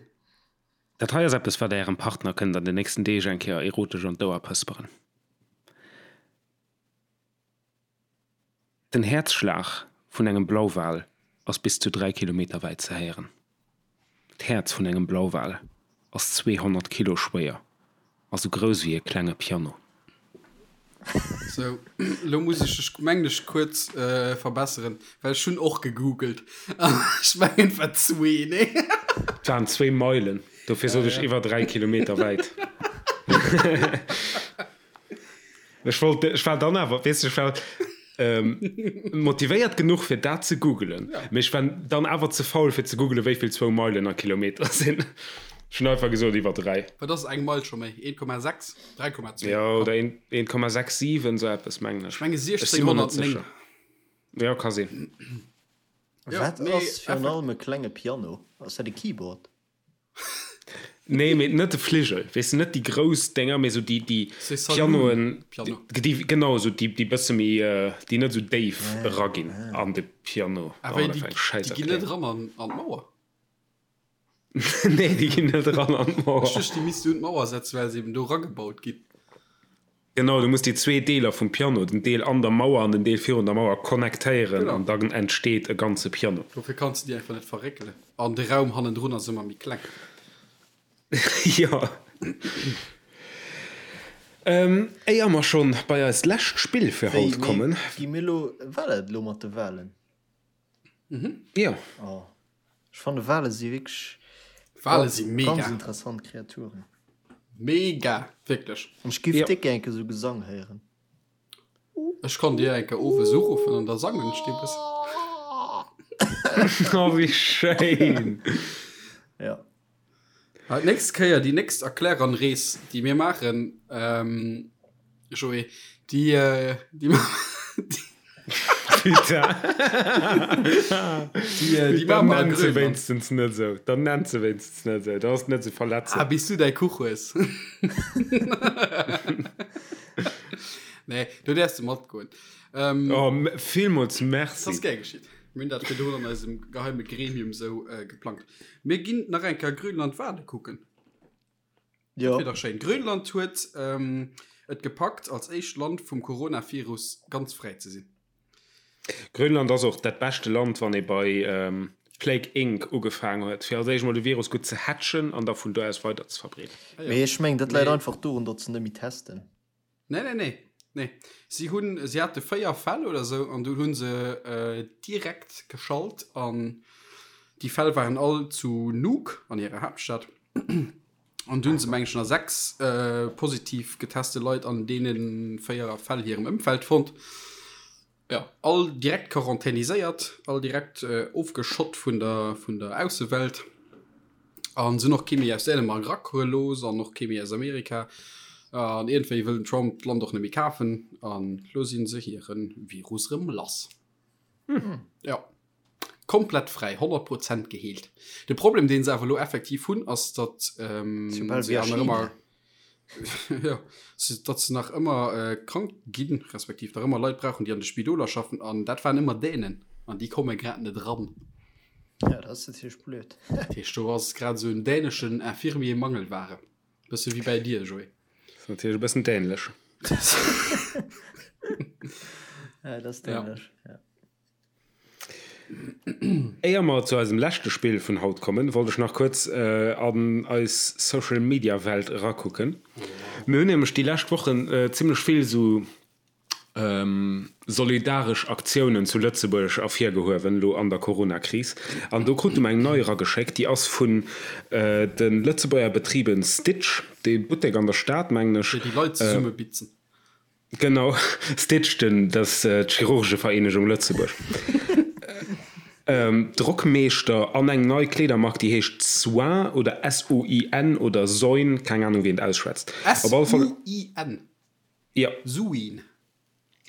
Speaker 1: Dat hei ass eppes, wat Der Ärem Partner kënnt an den nächsten Deeg eng Kéier erotesch an d'Ouer pësperen. Den Häerzschlag vun engem Blauwal ass bis zu 3 Kilometer wäit ze héieren. D'Häerz vun engem Blauwal ass 200 Kilo schwéier a sou grouss wéi e klenge Piano.
Speaker 3: Sou, lo muss ech dech, mengen ech, kuerz verbesseren, well ech hunn och gegoogelt an ech mengen et war zwee, nee?
Speaker 1: Et waren zwéi Meilen, dofir sot ech iwwer 3 Kilometer wäit. Ech wollt, ech war dann awer, weess de, ech war motivéiert genuch fir dat ze googelen, mee ech war dann awer ze faul fir ze googelen, wéi vill zwou Meilen a Kilometer sinn. Ech hunn einfach gesot iwwer 3.
Speaker 3: Wat ass eng Meil scho méi? 1,6? 3,2?
Speaker 1: Jo, oder 1,67, esou eppes mengen ech.
Speaker 3: Ech menge
Speaker 1: Ech si mer net
Speaker 3: 1609.
Speaker 1: sécher. Jo, ka sinn.
Speaker 3: Jo,
Speaker 2: Wat
Speaker 3: mee
Speaker 2: ass virun allem e klenge Piano? Ass dat e Keyboard?
Speaker 1: Nee, mee net de Fligel, weess de, net déi grouss Dénger, mee esou déi, déi Pianoen, déi, genau, esou déi, déi bësse méi, déi net esou déif eraginn an de Piano.
Speaker 3: Ah, wéi, déi, déi ginn net eran an, an d'Mauer?
Speaker 1: Nee, déi ginn net eran an d'Mauer.
Speaker 3: Ech duecht, déi misst du un d'Mauer setzen, well se eben do eragebaut ginn.
Speaker 1: Genau, du muss déi zwee Deeler vum Piano, den Deel an der Mauer an den Deel virun der Mauer, connectéieren
Speaker 3: Genau.
Speaker 1: an dann entsteet e ganze Piano.
Speaker 3: Dofir kanns de déi einfach net verréckelen. An de Raum hannendrun ass ëmmer méi kleng.
Speaker 1: Jo. Éier mer schonn bei eist lescht Spill fir
Speaker 2: Wéi,
Speaker 1: haut
Speaker 2: mee
Speaker 1: kommen.
Speaker 2: gi mir elo, war dat elo mat de Walen?
Speaker 1: Jo.
Speaker 2: Oh, ech fanne Wale si wierklech
Speaker 3: Wale si mega.
Speaker 2: ganz interessant Kreaturen.
Speaker 3: Mega, wierklech.
Speaker 2: An ech giff
Speaker 1: Jo.
Speaker 2: déck gär enke sou Gesang héieren.
Speaker 3: Ech kann dir enke owes uruffen an da sangen ech dir e bëssen.
Speaker 1: Oh, wéi schéin!
Speaker 2: Ja.
Speaker 3: Ah, d'nächst Kéier, déi nächst Erkläranrees, déi mir maachen, ähm, Joé, déi, äh, déi, déi,
Speaker 1: Putain.
Speaker 3: déi, äh, déi
Speaker 1: Dann
Speaker 3: maache mer a
Speaker 1: nennt se
Speaker 3: Grönland.
Speaker 1: wéinstens net esou. Dann nennt se wéinstens net esou. Da ass net esou
Speaker 3: Ah,
Speaker 1: verletzend.
Speaker 3: bis du däi Kuch hues. Nee, do däerfs de matgoen. Ähm,
Speaker 1: Oh, villmools
Speaker 3: Das ass
Speaker 1: Merci.
Speaker 3: gär geschitt. Mir hunn dat virdrun an eisem geheime Gremium sou äh, geplangt. Mir ginn nach eng Kéier Grönland Wale kucken.
Speaker 2: Jo.
Speaker 3: Dat wier dach schéin. Grönland huet ähm, et gepackt, als éischt Land vum Coronavirus ganz fräi ze sinn.
Speaker 1: Grönland ass och dat beschte Land, wann ee bei ähm, Plague Inc. Ugefaangen huet, fir als éischt mol de Virus gutt ze hatchen an da vun do aus weider ze verbreeden.
Speaker 3: Ah, ja.
Speaker 2: Mee ech mengen, dat läit
Speaker 3: Mee
Speaker 2: einfach dorun, datt se net méi testen.
Speaker 3: Nee, nee, nee. Nee. Si hunn, si hate 4 Fäll oder sou an dunn hu se direkt geschalt an déi Fäll waren all zu Nuuk an hirer Haaptstad. An dunn se meng ech nach 6 positiv geteste Leit an deene 4 Fäll hirem Ëmfeld fonnt. Jo, all direkt quarantäniséiert, all direkt ofgeschott vun der, vun der Aussewelt. An se hunn och kee méi aus Dänemark erakomme looss an och kee méi aus Amerika. An iergendwéi wëll den Trump d'Land och net méi kafen. An lo si se hire Virus rëm lass. Jo, komplett fräi, 100 Prozent geheelt. De Problem, dee se awer elo effektiv hunn, ass, datt
Speaker 2: Soubal
Speaker 3: se
Speaker 2: wéi a
Speaker 3: awer ëmmer
Speaker 2: China.
Speaker 3: Jo, datt se nach ëmmer krank ginn, respektiv nach ëmmer Leit brauchen, déi an de Spidoler schaffen. An dat waren ëmmer Dänen. An déi komme grad net eran.
Speaker 2: Ja, dat ass natierlech blöd.
Speaker 3: Dat heescht, do ass grad esou en däneschen Infirmier Mangelware. Bësse wéi bäi dir, Joé.
Speaker 1: Dat ass natierlech e bëssen dänlech.
Speaker 2: Ja, dat ass dänlech, ja.
Speaker 1: Éier mer zu eisem leschte Spill vun haut kommen, wollt ech nach kuerz an eis Social Media Welt erakucken. Mir hunn nämlech déi lescht Wochen zimmlech vill esou solidaresch Aktiounen zu Lëtzebuerg ervirgehuewen, elo an der Corona-Kris. An do krute mer eng nei erageschéckt, déi ass vun de Lëtzebuerger Betriben Stitch, dee Buttek an der Stad, mengen ech.
Speaker 3: Déi déi Leit zesummebitzen.
Speaker 1: Genau, Stitch, den, dat ass d'Chirurgevereenegung Lëtzebuerg. Drockmeeschter an eng nei Kleedermark, déi heescht Soin oder S-O-I-N oder Soin, keng Anung wéi een et ausschwätzt.
Speaker 3: Op alle Fall. S-U-I-N.
Speaker 1: Jo.
Speaker 3: Suin.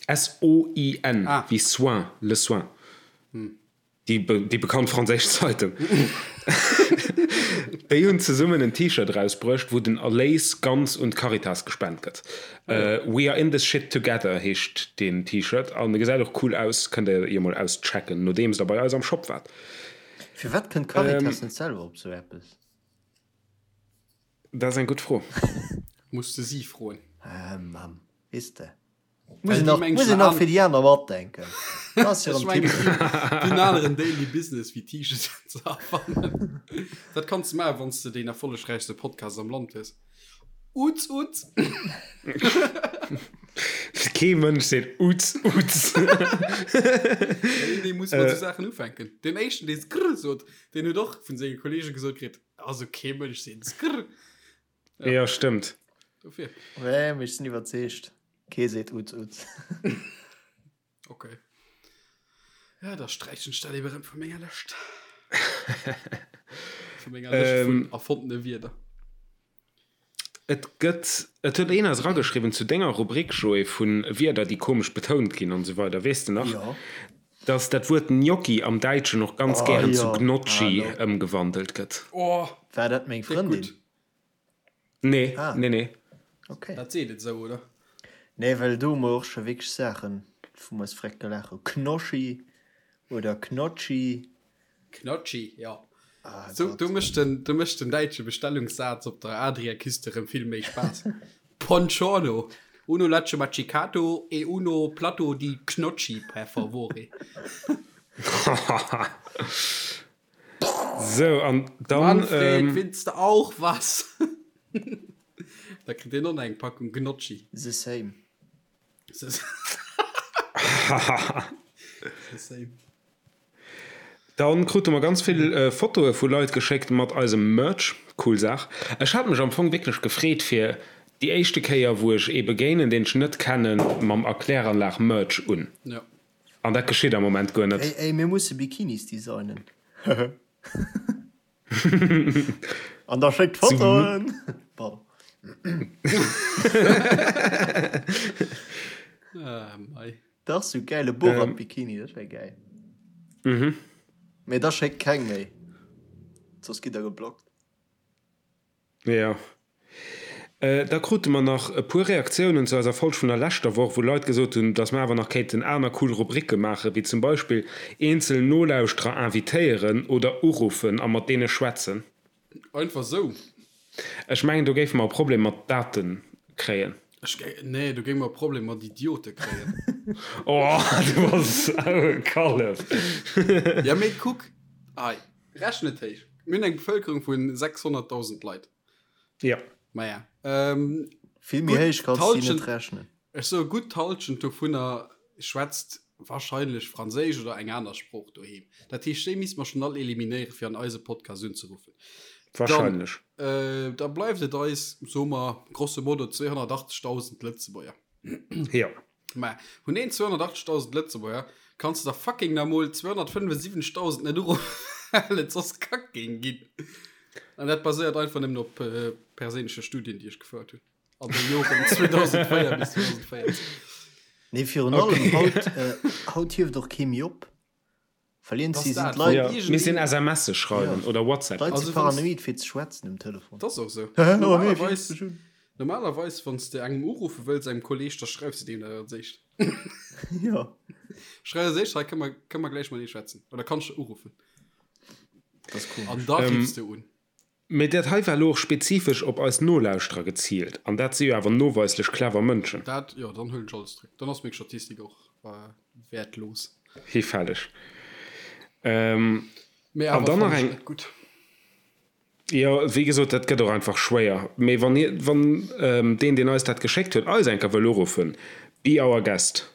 Speaker 1: S-O-I-N, wéi soin, le soin. Déi, déi bekannt franséisch Zeitung. Déi hunn zesummen en T-Shirt erausbruecht, wou den Erléis ganz un d'Caritas gespent gëtt. We are in this shit together heescht deen T-Shirt an e gesäit och cool aus. Kënnt der jo mol auschecken, nodeems der bei eis am Shop waart.
Speaker 2: Firwat kënnt d'Caritas net selwer op sou eppes?
Speaker 1: Dat ass eng gutt Fro.
Speaker 3: Muss de si froen.
Speaker 2: Ah, Mamm, weess de. Muss een nach, muss een nach fir déi aner matdenken.
Speaker 3: Dat ass jo erëm typesch. Déi hunn aneren Daily Business wéi T-Shirten ze erfannen. Dat kanns de maachen, wann s de deen erfollegräichste Podcast am Land hues. Uz, uz!
Speaker 1: Kee Mënsch seet uz, uz.
Speaker 3: Iergendee muss mat esou Saachen ufänken. Deen éischten, dee skrr sot, deen huet och vun senge Kolleege gesot kritt, Also kee Mënsch seet skrr.
Speaker 1: Ja, ja stëmmt.
Speaker 3: Dofir.
Speaker 2: Nee, mee ech sinn iwwerzeegt, kee seet Uz Uz.
Speaker 3: Okay. Ja, da sträichen ech dat eben erëm vu menger Lëscht. Vu menger Lëscht vun ähm, erfondene Wierder.
Speaker 1: Et gëtt, et huet een eis erageschriwwen zu denger Rubrik, Joé, vu Wierder, déi komesch betount ginn an esou weider, weess de nach?
Speaker 2: Jo.
Speaker 1: Dass dat Wuert Gnocchi am Däitschen och ganz
Speaker 2: Oh
Speaker 1: gären zu
Speaker 2: jo,
Speaker 1: Gnocchi
Speaker 2: hallo.
Speaker 1: ëmgewandelt gëtt.
Speaker 3: Oh,
Speaker 2: War dat meng
Speaker 3: déck
Speaker 2: Frëndin?
Speaker 3: gutt.
Speaker 1: Nee,
Speaker 2: Ah.
Speaker 1: nee, nee.
Speaker 2: Okay.
Speaker 3: Dat seet et esou, oder?
Speaker 2: Nee, well do hu mer och scho wierklech Saachen, wou mer eis vreckt gelaach hu. Knoschi oder Knotschi.
Speaker 3: Knotschi, jo.
Speaker 2: Ah,
Speaker 3: So,
Speaker 2: Gott.
Speaker 3: do mécht den, do mécht den däitsche Bestellungssaz op der Adriaküste rëm vill méi Spaass. Buongiorno, uno latte macchiato e uno platto di Knotschi, per favore.
Speaker 1: So, an dann.
Speaker 3: Manfred,
Speaker 1: Ähm,
Speaker 3: willst du auch was? Da kritt deen och nach eng Packung Gnocchi.
Speaker 2: The same.
Speaker 3: The same.
Speaker 1: Dann krute mer ganz vill Fotoe vu Leit geschéckt mat eisem Merch. Cool Saach. Ech hat mech am Fong wierklech gefreet fir déi éischte Kéier wou ech ee begéinen deen ech net kennen mam Erkläranlag Merch un.
Speaker 3: Ja.
Speaker 1: An dat geschitt am Moment guer net.
Speaker 2: Ey, ey, mir musse Bikinis designen. An da schéckt Fotoen! Pardon.
Speaker 3: Ah, mei.
Speaker 2: Dach sou gäile Borat Bikini, dat wär gäil.
Speaker 1: Mhm.
Speaker 2: Mee da schéckt keng méi, soss gitt der geblockt.
Speaker 1: Jo. Da krute mer nach e puer Reaktiounen zu eiser Folg vun der leschter Woch, wou Leit gesot hunn, dass mer awer nach kéinten aner cool Rubricke maachen, wéi zum Beispill eenzel Nolauschterer invitéieren oder uruffen a mat deene schwätzen.
Speaker 3: Einfach sou.
Speaker 1: Ech mengen, do géife mer e Problem mat Daten kréien.
Speaker 3: Ech géi, nee, do géinge mer e Problem mat Idiote kréien.
Speaker 1: Oh, du bass esou e Kallef.
Speaker 3: Ja, mee kuck, hei, rechne et héich. Mir hunn eng Bevëlkerung vu 600.000 Leit.
Speaker 1: Ja.
Speaker 3: Maja, ähm,
Speaker 2: Vill méi
Speaker 3: gutt
Speaker 2: héich kanns du déi
Speaker 3: d'Hallschent,
Speaker 2: net rechnen.
Speaker 3: ech soe gutt d'Hallschent dovunner schwätzt wahrscheinlech Franséisch oder eng aner Sprooch doheem. Dat heescht, déi misste mer schonn all eliminéieren, fir an eise Podcast unzeruffen. Dann,
Speaker 1: Wahrscheinlech.
Speaker 3: äh, da bleift et eis, soe mer, grosso modo 280.000 Lëtzebuerger.
Speaker 1: Jo.
Speaker 3: Mä vun den 280.000 Lëtzebuerger kanns de der fucking nach mol 275.000 net uruffen, well et soss kack géing ginn. An dat baséiert einfach nëmmen op äh, perséinleche Studien, déi ech gefouert hunn. An de Joren 2004 bis 2014.
Speaker 2: Nee, virun allem haut, äh, haut hieft och kee méi op. Well iergendwéi sinn d'Leit.
Speaker 1: Ja, misst een SMSe schreiwen oder WhatsApp.
Speaker 2: D'Leit si paranoid fir ze schwätzen um Telefon.
Speaker 3: Dat ass och esou. Normalerweis, normalerweis wann s de engem uruffe wëlls, engem Kolleeg, da schreifs de deem dat als éischt.
Speaker 2: Jo.
Speaker 3: Schreif als éischt, hei kënne mer, kënne mer gläich matenee schwätzen. Oder kanns de uruffen.
Speaker 2: Dat ass komesch.
Speaker 3: An da riffs de un.
Speaker 1: Mee dat hei war elo och spezifesch op eis Nolauschterer geziilt, an dat si jo awer noweislech clever Mënschen.
Speaker 3: Dat, jo, dann huelen ech alles zréck. Dann ass meng Statistik och wäertlos.
Speaker 1: Hifälleg.
Speaker 3: Mee
Speaker 1: An
Speaker 3: awer
Speaker 1: dann nach
Speaker 3: fannen ech
Speaker 1: eng.
Speaker 3: net gutt.
Speaker 1: Jo, wéi gesot, dat gëtt och einfach schwéier. Mee wann hie, wann deen, deen eis dat geschéckt huet, eis eng Kéier wëll uruffen, be our guest.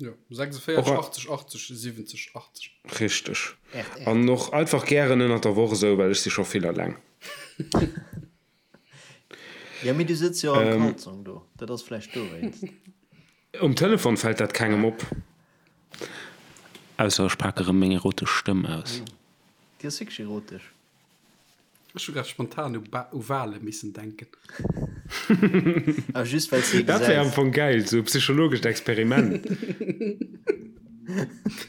Speaker 3: Jo, 46 80 80 70 80.
Speaker 1: Richteg. An och einfach gären ënnert der Woch esou, well ech si scho vill eleng.
Speaker 2: Jo, mee du sëtz jo am Kalzong do, dat ass vläicht dowéinst.
Speaker 1: Um Telefon fält dat kengem op. Ausser ech pake rëm meng erotesch Stëmm aus.
Speaker 2: Déi ass wierklech erotesch.
Speaker 3: Ech hu grad spontan u Ba u Wale missen denken.
Speaker 2: Ah, just well s de ee
Speaker 1: Dat wär am
Speaker 2: gesäis.
Speaker 1: Fong geil, sou e psychologescht Experiment.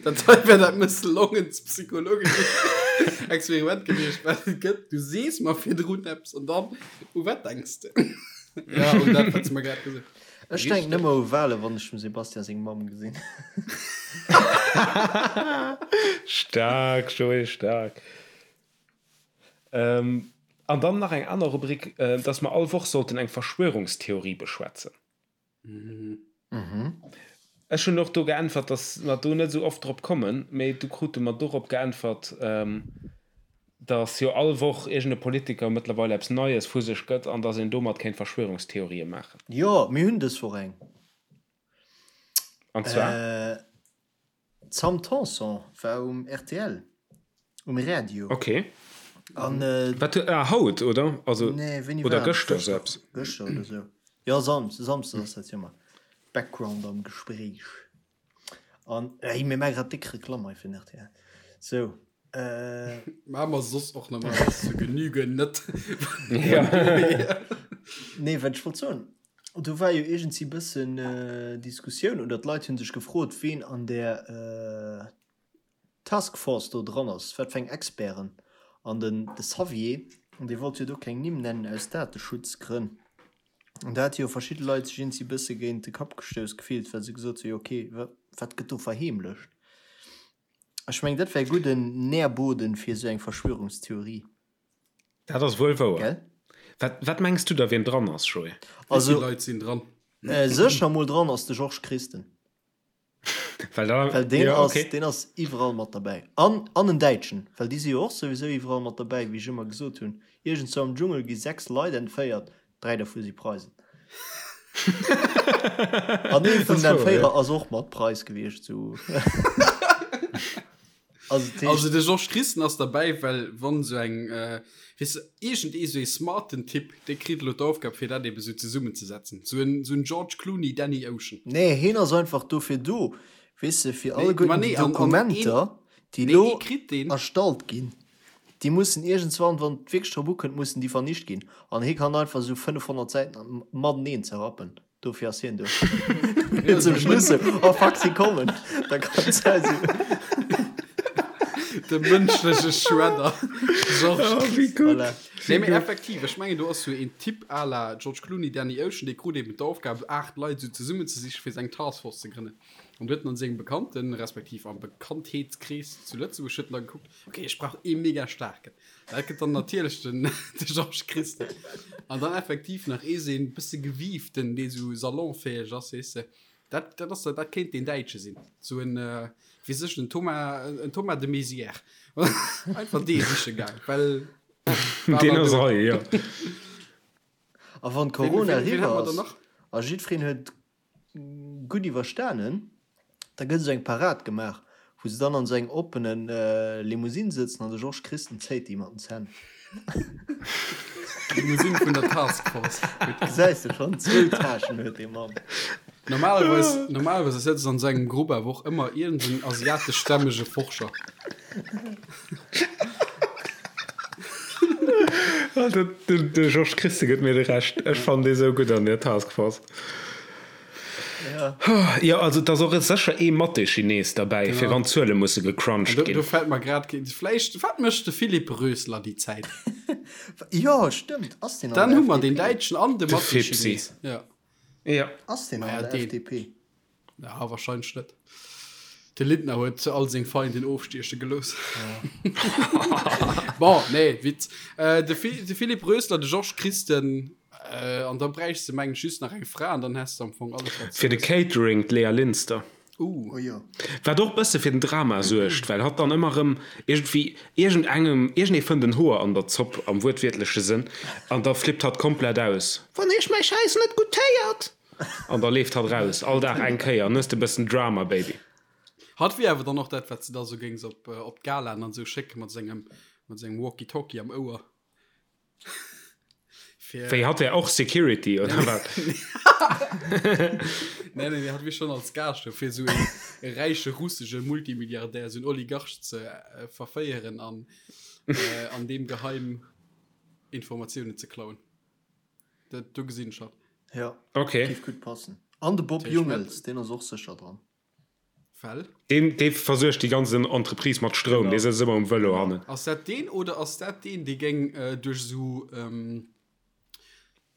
Speaker 3: Dat hei wär dat mësslongenst psychologescht Experiment gewiescht, wat et gëtt. Du sees mer virdrun eppes an dann, u wat denks de? Ja, un dat, wat s de mer grad gesot
Speaker 2: Ech denken ëmmer u Wale, wann ech dem Sebastian seng Mamm gesinn.
Speaker 1: Staark, Joé, staark. An dann nach eng aner Rubrik, dass mer all Woch sollten eng Verschwörungstheorie beschwätzen. Ech hunn och do geäntwert, dass mer do net esou oft drop kommen, mee du krute mer dorop geäntwert, dass jo all Woch iergend e Politiker mëttlerweil eppes Neies vu sech gëtt an dass een domat kéint Verschwörungstheorië maachen.
Speaker 2: Jo, mir hunn dës Woch eng.
Speaker 1: An zwar?
Speaker 2: D'Sam Tanson war um rtl, um Radio.
Speaker 1: Ok.
Speaker 2: An,
Speaker 1: Wat huet, ah, haut, oder? Also,
Speaker 2: nee, wéini
Speaker 1: oder
Speaker 2: war dat?
Speaker 1: gëschter, sou eppes.
Speaker 2: Gëschter oder sou. Jo, Sam, Samsdes ass dat jo ëmmer. Background am Gespréich. An, ey, mir maache grad déck Reklamm hei fir den rtl. Sou, äh.
Speaker 3: Maache mer soss och normalerweis zur Genüge net.
Speaker 1: Ja.
Speaker 2: Nee, wat ech wollt soen, Do war jo iergendsi bëssen Diskussioun oder d'Leit hu sech gefrot, ween an där Task Force do dran ass, wat fir eng Experten. An den de Xavier, dee wollt jo do keng Nimm nennen aus Dateschutzgrënn. An da hate jo verschidde Leit sech iergendsi bësse géint de Kapp gestouss gefillt, well se gesot hu jo okay, wat gëtt do verheemlecht? Ech mengen, dat wär e gudden Nährboden fir esou eng Verschwörungstheorie.
Speaker 1: Dat ass wuel wouer.
Speaker 2: Gell?
Speaker 1: Wat, wat mengs du da, wien dran ass, Joé?
Speaker 3: Wéi
Speaker 2: Also,
Speaker 3: vill Leit sinn dran?
Speaker 2: äh, sécher mol dran ass de Georges Christen.
Speaker 1: Well da,
Speaker 2: Well deen
Speaker 1: ja,
Speaker 2: ass,
Speaker 1: okay.
Speaker 2: deen ass iwwerall mat derbäi. An, an en Däitschen, well déi si jo och souwisou iwwerall mat derbäi, wéi ech ëmmer gesot hunn. Iergendzwou am Dschungel gi 6 Leit entféiert, 3 dervu si Preisen. An ee vun
Speaker 1: Das
Speaker 2: den
Speaker 1: ass wouer, ja.
Speaker 2: Entféierer ass och mat Preis gewiescht, sou. Also, dat heescht.
Speaker 3: Also de Georges Christen ass derbäi, well wann esou eng, weess de, iergend ee sou ee smarten Typ, dee kritt elo d'Aufgab fir dat ebe sou zesummenzesetzen. Sou en, sou en George Clooney, Danny Ocean.
Speaker 2: Nee, heen ass einfach dofir do, weess de, fir
Speaker 3: Nee, ma
Speaker 2: alleguerten
Speaker 3: nee,
Speaker 2: déi
Speaker 3: an, an een,
Speaker 2: Dokumenter, déi
Speaker 3: nee,
Speaker 2: elo
Speaker 3: ee kritt deen.
Speaker 2: erstallt ginn, déi mussen iergendswann, wann et wierklech drop ukënnt, mussen déi vernicht ginn. An hee kann einfach esou 500 Säiten mateneen zerrappen. Dofir ass hien do. Fir zum Schluss sou, oh fuck, si kommen. Da kann et sein, sou.
Speaker 3: De mënschleche Shredder. Georges
Speaker 1: Oh, wéi gutt.
Speaker 2: Voilà.
Speaker 3: Nee, mee effektiv, ech mengen, do ass sou een Typ à la George Clooney, Danny Ocean, dee krut eben d'Aufgab, 8 Leit sou zesummenzesichen, fir seng Taskforce ze grënnen. An du huet en an sengem Bekannten, respektiv am Bekanntheetskrees zu Lëtzebuerg, huet en da gekuckt, okay, ech brauch ee mega staarken. Dat gëtt dann natierlech den, de Georges Christen. An dann effektiv nach ee seen bësse gewieften, dee sou salonfäeg ass, weess de. Dat, dat ass, dat kéint deen Däitsche sinn. Sou en, äh, weess ech, en Thomas, en Thomas de Maizière. Einfach dee siche gaang, well war
Speaker 1: Deen
Speaker 3: nach
Speaker 1: ass
Speaker 3: do.
Speaker 1: hei, jo.
Speaker 2: A wann
Speaker 3: Ween,
Speaker 2: Corona
Speaker 3: ween, ween
Speaker 2: eriwwer
Speaker 3: hätte mer dann
Speaker 2: ass
Speaker 3: nach?
Speaker 2: a jiddwereen huet gutt iwwerstanen, da gëtt esou eng Parad gemaach, wou se dann an esou engem oppene Limousine sëtzen an de Georges Christen zéit déi mat den Zänn.
Speaker 3: Limousine vun der Task Force.
Speaker 2: Gesäis de schonn, zwou Täschen huet dee Mann.
Speaker 3: Normalerweis, normalerweis sëtzt an esou engem Grupp awer och ëmmer iergend en asiateschstämmege Forscher.
Speaker 1: De Georges Christen gëtt mir de Rescht. Ech fannen dee sou gutt an der Task Force.
Speaker 2: Ja.
Speaker 1: Jo, also et ass och sécher ee Mathé-Chines derbäi, fir wann d'Zuele musse gecrunched
Speaker 3: Do,
Speaker 1: ginn.
Speaker 3: do fält mer grad keen. Vläicht, wat mécht de Philippe Rösler déi Zäit?
Speaker 2: Jo, stëmmt. Ass deen an
Speaker 3: Dann
Speaker 2: der
Speaker 3: hu mer den
Speaker 2: FDP?
Speaker 3: Däitschen an de
Speaker 1: De Fipsi.
Speaker 3: Mathé-Chines. Ja.
Speaker 1: Ja.
Speaker 2: Ass deen
Speaker 3: Maja,
Speaker 2: an der
Speaker 3: deen.
Speaker 2: FDP?
Speaker 3: Ja, wahrscheinlech net. De Lindner huet all seng Feinden ofstieche gelooss. Bon, nee, Witz. Äh, de, Fi de Philipp Rösler, de Georges Christen, äh, an da bräichs de mengen ech just nach eng Fra an dann häss de am Fong alles
Speaker 1: wat Fir de Catering d'Léa Linster.
Speaker 3: Uh.
Speaker 2: Oh jo.
Speaker 1: Wat och bësse fir den Drama suergt, well hatt dann ëmmer erëm iergendwéi iergendengem, iergendee fënnt en Hoer an der Zopp, am wuertwiertleche Sënn, an da flippt hatt komplett aus. Wann iech mäi Schäiss net guttéiert! An da leeft hatt raus, all Dag eng Kéier, an hues de bëssen Drama, Baby.
Speaker 3: Hatt wier awer dann och dat, wat s de da sou géings op, op d'Galaen an esou schécke mat sengem, mat sengem Walkie-Talkie am Ouer.
Speaker 1: Fir. Wéi, hatt wär och Security, oder wat?
Speaker 3: Nee, nee, hatt wier schonn als Gaascht do, fir esou een e räiche russesche Multimilliardär, esou en Oligarch ze verféieren an, an deem geheim Informatiounen ze klauen. Dat, do gesinn ech hatt.
Speaker 2: Ja,
Speaker 1: Okay.
Speaker 2: géif gutt passen. An de Bob Jungels, deen ass och sécher dran.
Speaker 3: Well?
Speaker 1: Deen, dee versuergt déi ganz Entreprise mat Stroum, dee sëtzt ëmmer um Vëlo hannen.
Speaker 3: Ass dat deen oder ass dat deen, dee géing duerch esou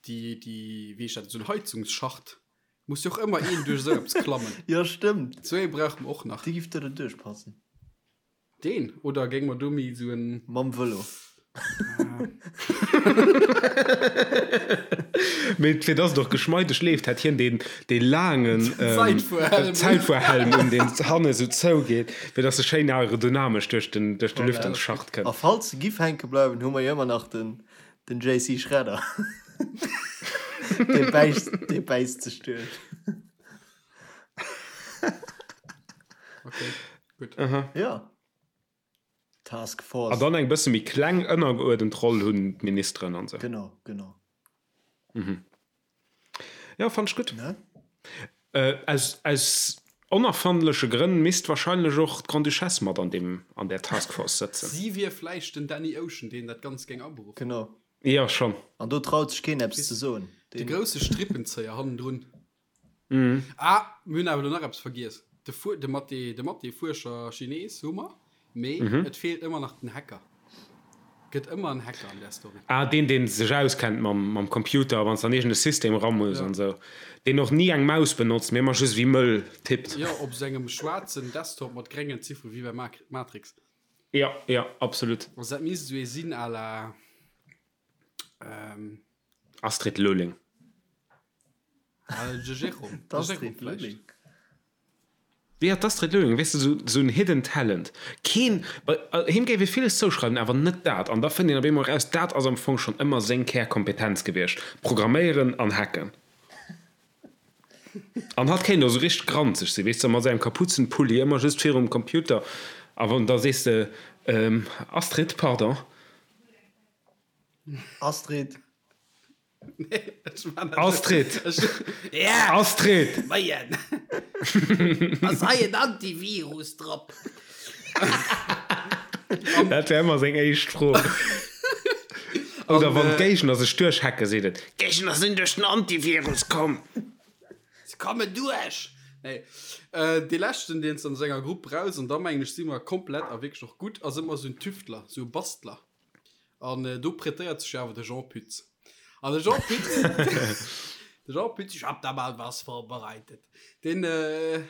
Speaker 3: déi, déi, wéi heescht dat, esou en Heizungsschacht, muss jo och ëmmer een duerch esou eppes klammen.
Speaker 2: Jo, stëmmt.
Speaker 3: Esou ee brauche mer och nach.
Speaker 2: Dee giff do derduerch passen.
Speaker 3: Deen? Oder géing mer do méi esou en.
Speaker 2: Mam Vëlo.
Speaker 1: Mee fir dass et och geschmeideg leeft, hätt hien deen, dee laangen Zäitfuerhelm un, deen hanne sou zougeet, fir dass e schéin aerodynamesch duerch den, duerch de Lüftungsschacht
Speaker 2: kënnt. A falls se giff hänke bleiwen, hu mer jo ëmmer nach den, den JC Schredder. Dee bäisst, dee bäisst sech duerch.
Speaker 3: Okay, gutt.
Speaker 2: Ja. Task Force.
Speaker 1: An dann eng bësse méi kleng ënnergeuerdent Roll hunn d'Ministeren an sou.
Speaker 2: Genau, genau.
Speaker 1: Mhm. Jo, fannt ech gutt.
Speaker 2: Ne?
Speaker 1: Äh, aus, aus onerfandleche Grënn misst wahrscheinlech och d'Grande-Duchesse mat an deem, an där Task Force sëtzen.
Speaker 3: Si wier vläicht den Danny Ocean, deen dat Ganzt géing aberuffen.
Speaker 2: Genau.
Speaker 1: Jo, schonn.
Speaker 2: An do traut sech keen eppes ze soen.
Speaker 3: De grousse Strippenzéier hannendrun. Ah, mir hunn awer elo nach eppes vergiess. De Fu de Mathé, de Mathé-Fuerscher Chines hu mer, mee et feelt ëmmer nach den Hacker. Gëtt ëmmer en Hacker an där Story.
Speaker 1: Ah, deen, deen sech auskennt mam, mam Computer, wann s de an iergend e System era muss an esou. Deen och ni eng Maus benotzt, mee ëmmer just wéi mëll tippt.
Speaker 3: Jo, op sengem schwaarzen Desktop mat gréngen Ziffere wéi bei Matrix.
Speaker 1: Jo, jo, absolut.
Speaker 3: Also dat misst esou ee sinn à la.
Speaker 1: Astrid Lulling.
Speaker 2: D'Astrid Lulling.
Speaker 1: Jo, d'Astrid Lulling, weess de, sou, sou en hidden talent. Keen, bei him géif ee villes zouschreiwen, awer net dat. An da fënnt een op eemol eraus, dat ass am Fong schonn ëmmer seng Kärkompetenz gewiescht, Programméieren an Hacken. An hatt kéint och sou richteg granzeg sinn, weess de, mat sengem Kapuzenpulli ëmmer just virum Computer. A wann da sees de, Astrid, pardon.
Speaker 2: Astrid.
Speaker 1: Astrid! Astrid!
Speaker 3: Moien! Ass hei en Antivirus drop?
Speaker 1: Dat wär ëmmer seng éischt Fro. Oder wann d'Géigner sech duerchhacke seet et, D'Géigner sinn duerch den Antivirus komm!
Speaker 3: Se kommen duerch! Nee. Dee leschten, deen s de an senger Grupp brauchs, an da mengen ech si mer komplett a wierklech och gutt, ass ëmmer esou en Tüftler, esou e Bastler. An do prêtéiert sech jo awer de Jean Pütz. An de Jean Pütz, de Jean Pütz, ich hab da mal was vorbereitet. Deen äh,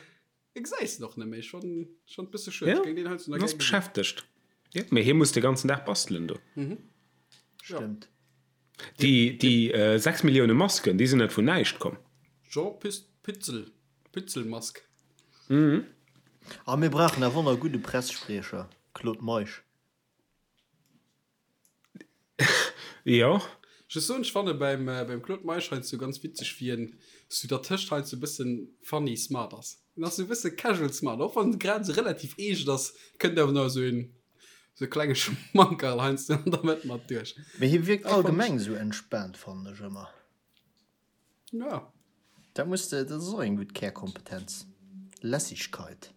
Speaker 3: gesäis de och net méi. Schon, schon e bësse schued.
Speaker 1: Ja,
Speaker 3: Géing deen heiansdo nach
Speaker 1: ass
Speaker 3: gär gesinn.
Speaker 1: beschäftegt. Ja, mee hie muss de ganzen Dag bastelen do.
Speaker 2: Stëmmt.
Speaker 1: Déi, déi äh, 6 Millioune Masken, déi sinn net vun näischt komm.
Speaker 3: Jean Pütz, Pützel, Pützelmask.
Speaker 2: A mir brauchen awer och nach e gudde Pressespriecher, Claude Meisch.
Speaker 1: Jo.
Speaker 3: Just soen, ech fanne beim, beim Claude Meisch heiansdo ganz witzeg, wéi en sou dertëscht heiansdo e bëssen funny smart ass. En ass sou e bësse casual smart, och wann en grad sou relativ eescht ass, kënnt awer nach esou een, sou e klenge Schmankerl heiansdo an der Mëtt mat duerch.
Speaker 2: Mee hie wierkt allgemeng sou entspaant, fannen ech ëmmer.
Speaker 3: Ja.
Speaker 2: Dat muss de, dat ass och eng gutt Kärkompetenz. Lässigkeit.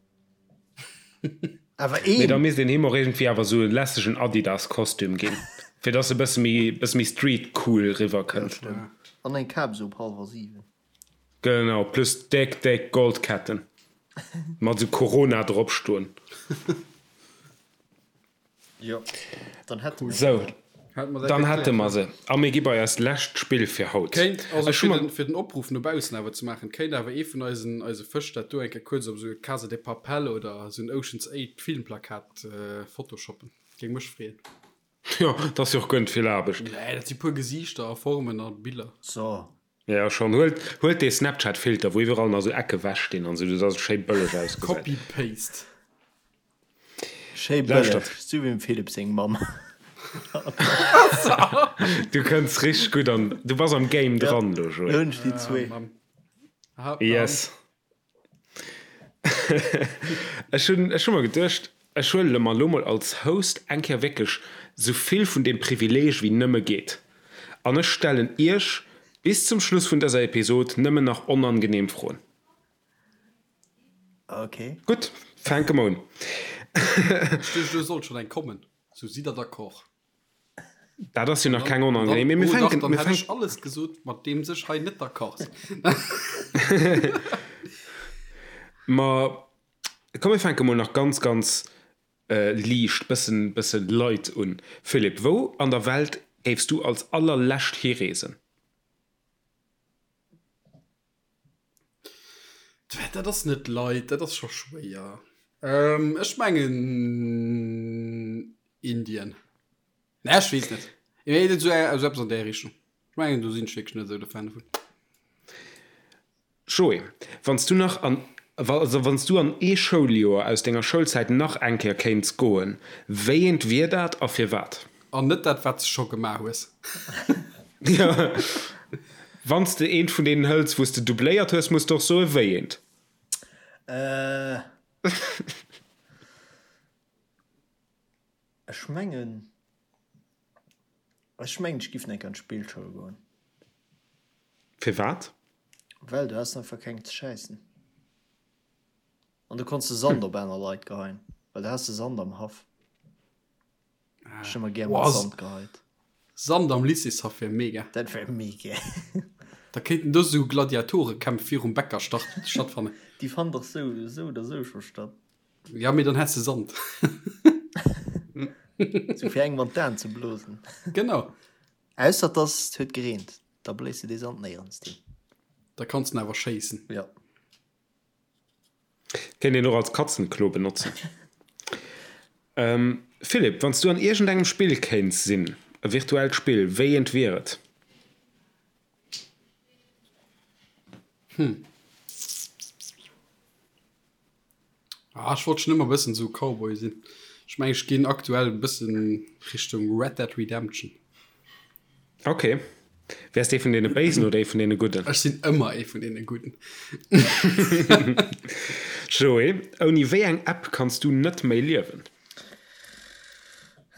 Speaker 2: Awer
Speaker 1: Mee da
Speaker 2: een!
Speaker 1: misst een him och iergendwéi awer esou e lässegen Adidas-Kostüm ginn, fir dass e bësse méi, bësse méi street-cool
Speaker 2: Ja,
Speaker 1: riwwerkënnt.
Speaker 2: stëmmt. An eng Kap esou op hallwer 7.
Speaker 1: Genau, plus déck, déck Goldketten mat esou Corona drop stoen.
Speaker 2: Jo, dann hätte mer
Speaker 1: Sou,
Speaker 2: dat.
Speaker 1: Dann hätte mer se. A mir gi bei eist lescht Spill fir haut.
Speaker 3: Kéint, also fir den, fir den Opruff no baussen awer ze maachen, kéint awer ee vun eisen, eise Fësch dat do eng Kéier kuerz op esou e Casa de Papel oder esou en Ocean's 8 Filmplakat photoshoppen. Géing mech freeën.
Speaker 1: Jo, dat ass jo och guer net vill Aarbecht.
Speaker 3: Nee, dat si puer Gesiichter a Formen a Biller.
Speaker 2: So.
Speaker 1: Jo, schonn. Huelt, huelt dee Snapchat-Filter, wou iwwerall nach esou Ecke wech stinn an esou, dass et schéi bëlleg ausgesäit.
Speaker 3: Copy-Paste.
Speaker 2: Schéi bëlleg, sou wéi dem Philippe seng Mamm.
Speaker 1: Du kënns richteg gutt an, du bass am Game dran elo, Joé.
Speaker 2: Lo hunn ech déi zwee.
Speaker 1: Yes. Ech hunn, ech hu mer geduecht, ech huele mer elo mol als Host eng Kéier wierklech sou vill vun deem Privileeg wéi nëmme geet an ech stellen Iech bis zum Schluss vun dëser Episod nëmmen nach onangeneem Froen.
Speaker 2: Ok.
Speaker 1: Gutt, fänke mer un.
Speaker 3: Ech duecht, elo sollt schonn eng kommen. Sou, sidd der d'accord?
Speaker 1: Dat ass jo nach keng onangenehm. Mee mir
Speaker 3: Oh dach,
Speaker 1: fänken,
Speaker 3: dann
Speaker 1: mir
Speaker 3: hätt ech
Speaker 1: fänken.
Speaker 3: alles gesot, mat deem sech hei net d'accord sinn.
Speaker 1: Ma komm, mir fänke mol nach ganz, ganz liicht, bëssen, bëssen light un. Philippe, wou an der Welt géifs du als allerlescht hireesen?
Speaker 3: Dat ass net light, dat ass scho schwéier. Ech mengen Indien. Nee, ech weess net. Mee et esou esou eppes an där Richtung. Ech mengen, do sinn ech wierklech net esou de Fan dovun.
Speaker 1: Joé, wann s du nach an, also wann s du an ee Schouljoer aus denger Schoulzäit nach eng Kéier kéints goen, wéi eent wier dat a firwat?
Speaker 3: An net dat, wat s de scho gemaach hues.
Speaker 1: Jo, wann s de eent vun deenen hëls, wou s de doubléiert hues, muss de och soen, wéi eent.
Speaker 2: Ech mengen, ech mengen ech giff enk an d'Spillschoul goen.
Speaker 1: Firwat?
Speaker 2: Well du has einfach keng ze schäissen. An du konns de Sand op aner Leit geheien, well du has de Sand am Haff. Ech hu ëmmer gär mat Sand geheit.
Speaker 3: Sand am Lycéeshaff wär mega.
Speaker 2: Dat wär mega.
Speaker 3: Da kéinten do sou Gladiatorekämpf virum Bäcker stattfannen.
Speaker 2: Déi fannen dach sou oder sou scho statt.
Speaker 3: Ja, mee dann häss de Sand.
Speaker 2: Sou fir engem an d'Aen ze blosen.
Speaker 3: Genau.
Speaker 2: Ausser dass et huet gereent, da bléis de dee Sand néierens hin.
Speaker 3: Da kanns den awer schéissen.
Speaker 2: Ja.
Speaker 1: Kéint een och als Katzenklo benotzen. Philippe, wann s du an iergendengem Spill kéints sinn, e virtuellt Spill, wéi eent wier et?
Speaker 3: Hm. Ah, ech wollt schon ëmmer bëssen sou Cowboy sinn. Ech mengen, ech ginn aktuell e bëssen Richtung Red Dead Redemption.
Speaker 1: Ok. Wäers de ee vun deene Béisen oder ee vun deene Gudden?
Speaker 3: Ech sinn ëmmer ee vun deene Gudden.
Speaker 1: Joé, ouni wéi eng App kanns du net méi liewen?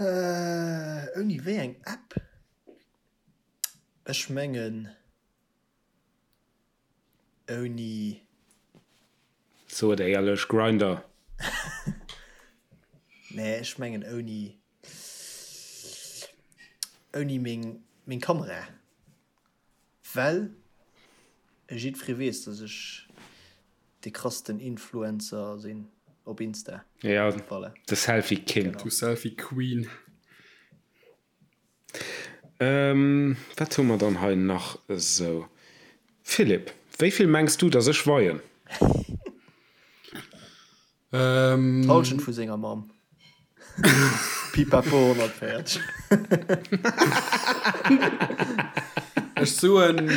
Speaker 2: Ouni wéi eng App? Ech mengen. Ouni.
Speaker 1: So et éierlech, Grindr.
Speaker 2: Nee, ech mengen ouni, ouni meng, meng Kamera. Well jiddweree weess, dass ech de krassten Influencer sinn op Insta.
Speaker 1: Ja, voilà. De Selfie King.
Speaker 3: Du Selfie Queen.
Speaker 1: Wat hu mer dann hei nach esou? Philippe, wéi vill mengs du, dass ech weien?
Speaker 2: D'Hallschent vu senger Mamm. Pipapo 140.
Speaker 3: Ech soen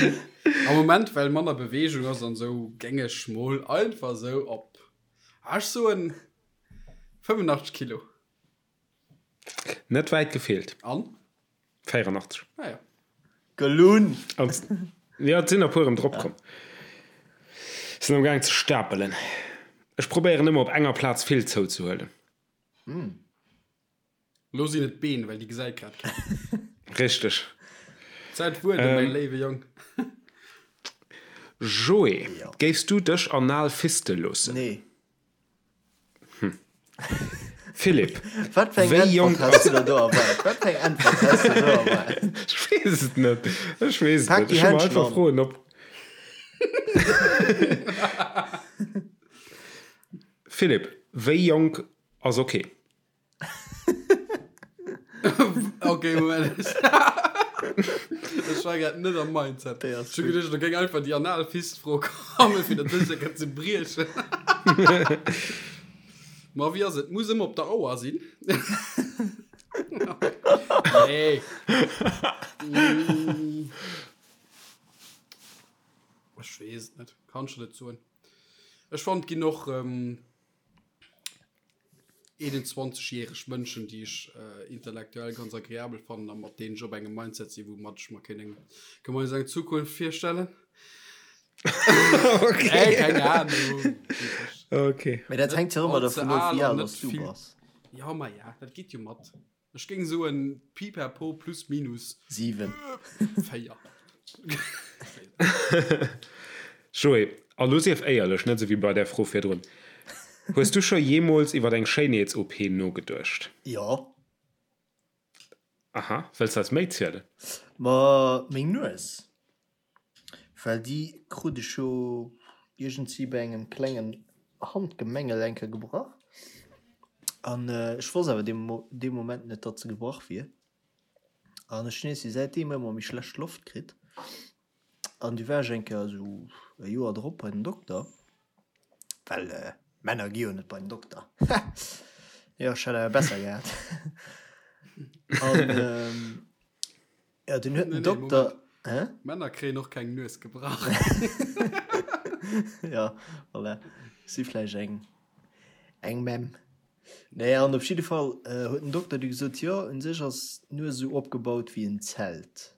Speaker 3: am Moment, well manner Beweegung ass an esou, géing ech mol einfach esou op, ech soen 85 Kilo.
Speaker 1: Net wäit gefeelt.
Speaker 3: An?
Speaker 1: 84.
Speaker 3: Ah ja.
Speaker 2: Gelunn!
Speaker 1: Jo, et sinn der puer erëm drop komm. Sinn am gaang ze stapelen. Ech probéieren ëmmer op enger Plaz vill zouzehuelen.
Speaker 3: Lo sinn et d'Been, well déi gesäit grad keen.
Speaker 1: Richteg.
Speaker 3: Zäit wuarden, mäi léiwe Jong.
Speaker 1: Joé, géifs du dech anal fiste loossen?
Speaker 2: Nee.
Speaker 1: Hm. Philipp,
Speaker 2: Wat fir eng
Speaker 1: wéi jonk
Speaker 2: Äntwert has du der do erwaart? Wat fir eng Äntwert has du do erwaart?
Speaker 1: Ech weess et net. Ech weess et
Speaker 2: Pak
Speaker 1: net.
Speaker 2: déi
Speaker 1: Ech hu mer
Speaker 2: Händschen
Speaker 1: einfach
Speaker 2: an.
Speaker 1: Froen op. Philipp, wéi jonk ass ok?
Speaker 3: Okay, Moment. Ech war grad net am Mindset.
Speaker 2: Déi ass
Speaker 3: Ech hu
Speaker 2: gutt.
Speaker 3: geduecht, do géing einfach déi Analfist-Fro kommen, fir dat sécher kënnen ze briechen. Ma wéi ass et? Muss ëmmer op der Auer sinn. Nee. Mm. Ech weess et net. Kann ech net soen. Ech fannen, et ginn och ähm, 21 järeg Mënschen, déi ech äh, intellektuell ganz agreabel fannen a mat deenen ech op engem Mindset sinn, woumat ech mer kéint eng gemeinsam eng Zukunft virstellen.
Speaker 1: Okay.
Speaker 3: Ey, keng Ahnung.
Speaker 1: Okay.
Speaker 2: Mee dat hänkt jo ëmmer
Speaker 3: Allze
Speaker 2: dervun of,
Speaker 3: al
Speaker 2: wéi
Speaker 3: an
Speaker 2: al
Speaker 3: net
Speaker 2: dass du
Speaker 3: vill.
Speaker 2: bass.
Speaker 3: Ja, ma ja, dat geet jo mat. Ech géing soen pipapo plus minus
Speaker 2: 7.
Speaker 3: 4.
Speaker 1: Joé, a lo sief éierlech, net esou wéi bei där Fro virdrun, Hues du scho jeemools iwwer eng Schéinheets-OP nogeduecht?
Speaker 2: Jo.
Speaker 1: Aha, wëlls de eis méi zielen?
Speaker 2: Ma meng Nues. Well déi krut ech jo iergendwéi bei engem klengen Handgemengel eng Kéier gebrach. An ech wosst awer dee Moment net, datt se gebrach wier. An ech hunn iergendwéi säitdeem ëmmer méi schlecht Loft kritt. An du war ech eng Kéier esou e Joer drop bei den Dokter, well Männer gi jo net bei den Dokter. Jo, ech hätt awer besser gehat. An Ja, den huet den Dokter.
Speaker 3: Hä? Männer kréien och keng Nues gebrach.
Speaker 2: Ja, voilà. Si vläicht eng, eng Memm. Nee, an op jidde Fall äh, huet den Dokter du gesot, jo, un sech ass d'Nues esou opgebaut wéi en Zelt.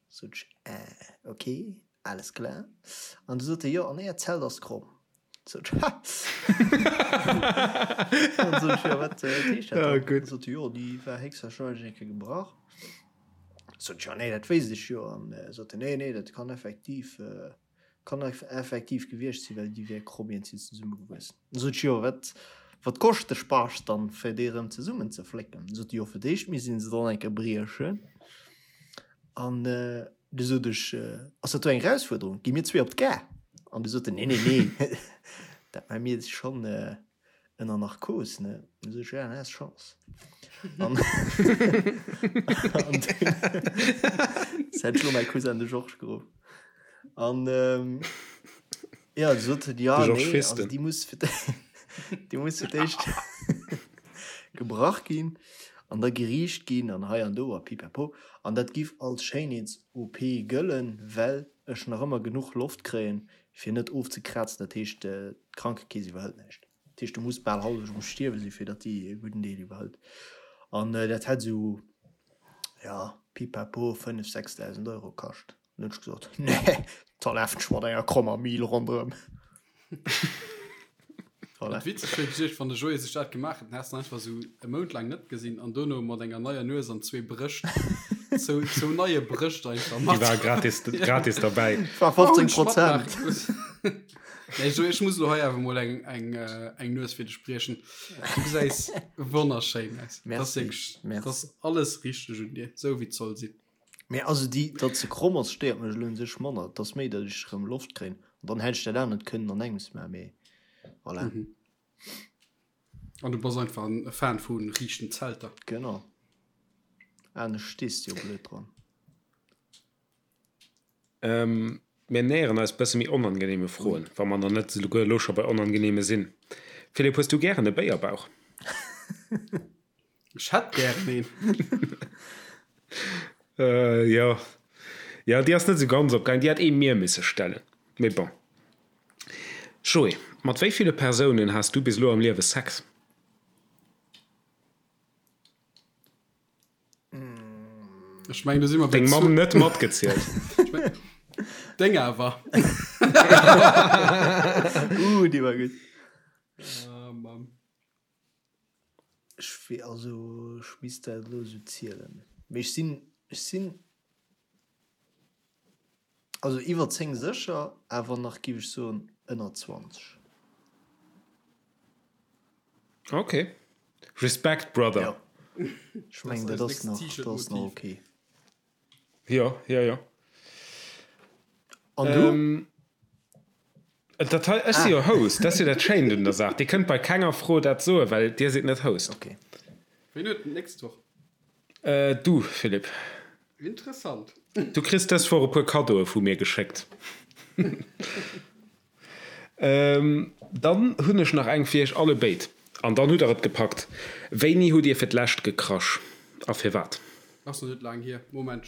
Speaker 2: Sot ech, äh, okay, alles klar. An du sot e, jo, an äert Zelt ass kromm. Sot ech, ha! An sot ech, jo, wat äh, heescht dat dann?
Speaker 1: Gutt.
Speaker 2: Sot e, jo, déi war héchstwahrscheinlech eng Kéier gebrach. Sot ech, jo, nee, dat wéisst ech jo. An sot en, nee, nee, dat kann effektiv, kann effektiv gewiescht sinn, well déi wär kromm iergendwéi zesummegewuess. Sot ech, jo, wat, wat koscht de Spaass dann, fir déi erëm zesummenzeflécken? Sot e, jo, fir d'éischt misst een se dann eng Kéier briechen. An du sot ech, ass dat do eng Erausfuerderung? Gi mir zwee op d'Gare? An du sot en, nee, nee, nee, dat maache mir schonn. Ënner Narkos, ne? Du sot ech, ja, dann has Chance. An, an dunn hätt ech lo mäi Cousin de Georges geruff. An ähm, ja, du sot en, ja,
Speaker 1: De Georges
Speaker 2: nee, also
Speaker 1: Festen.
Speaker 2: déi muss fir déi muss fir d'éischt gebrach ginn an da geriicht ginn an hei an do a pipapo. An dat giff als Schéinheets-OP gëllen, well ech nach ëmmer genuch Loft kréien, fir net ofzekrazen, dat heescht d'Krankekeess iwwerhëlt näischt. Dat heescht du muss bal hallef um Stierwe si fir datt déi e gudden Deel iwwerhëlt. An dat hätt esou, jo, pipapo 5, 6.000 Euro kascht. An hunn ech gesot, nee, da lafen ech mat enger krommer Mil ronderëm.
Speaker 3: Voilà. Witzeg wier gewiescht, wann de Joé sech dat gemaach hätt, dann häss de en einfach esou e Mount laang net gesinn an dono mat enger neier Nues an zwee Brëscht, zou, zou neie Brëscht einfach
Speaker 1: Déi
Speaker 3: mat.
Speaker 1: war gratis, gratis derbäi.
Speaker 2: War 15 Prozent.
Speaker 3: Nee, Joé, ech muss elo hei awer mol eng, eng, eng Nues fir dech briechen. Du gesäis wonnerschéin aus.
Speaker 2: Merci,
Speaker 3: Dat ass wierklech,
Speaker 2: merci.
Speaker 3: dat ass alles richteg un dir, esou wéi et soll sinn.
Speaker 2: Mee also déi, datt se kromm ass, stéiert mech elo un sech manner. Et ass méi, datt ech erëm Loft kréien. An dann hätt ech dat anert kënnen an engems maachen, mee voilà.
Speaker 3: Mhm. An du bass einfach en Fan vu riichten Zelter.
Speaker 2: Genau. Anescht stees de jo blöd dran.
Speaker 1: Ähm, mir näheren eis bësse méi onangenehme Froen, wa mer nach net souguer elo scho bei onangenehme sinn. Philippe, hues du gären e Béierbauch?
Speaker 3: Ech hätt gären een.
Speaker 1: Äh, jo. Jo, déi ass net esou ganz opgaangen. Déi hätt ee mir misse stellen. Mee bon. Joé, mat wéi ville Persounen has du bis elo am Liewe Sex?
Speaker 3: Ech mengen, do si mer bei
Speaker 1: Deng Mamm net matgezielt.
Speaker 3: Deng awer.
Speaker 2: Uh, déi war gutt.
Speaker 3: Ah, Mann.
Speaker 2: Ech wee, also ech misst dat elo esou zielen, mee ech sinn, ech sinn also iwwer 10 sécher, awer nach giff ech soen ënner 20.
Speaker 1: Ok. Respekt, Brother.
Speaker 2: Jo, ech mengen dat ass nach, dat ass nach ok.
Speaker 1: Jo, jo, jo.
Speaker 2: An du?
Speaker 1: Ähm, dat hei, ech si jo Host, dat ass jo dat Schéint un der Saach. Dir kënnt bei kenger Fro dat soen, well Dir sidd net Host.
Speaker 2: Ok.
Speaker 3: Wien huet d'nächst Woch?
Speaker 1: Du, Philippe.
Speaker 3: Interessant.
Speaker 1: Du kriss dës Woch e puer Kaddoe vu mir geschéckt. Dann hunn ech nach eng fir iech alle béid. An dann hutt der et gepackt. Wéini hutt dir fir d'lescht gekrasch a firwat?
Speaker 3: Ass nach net laang hier. Moment.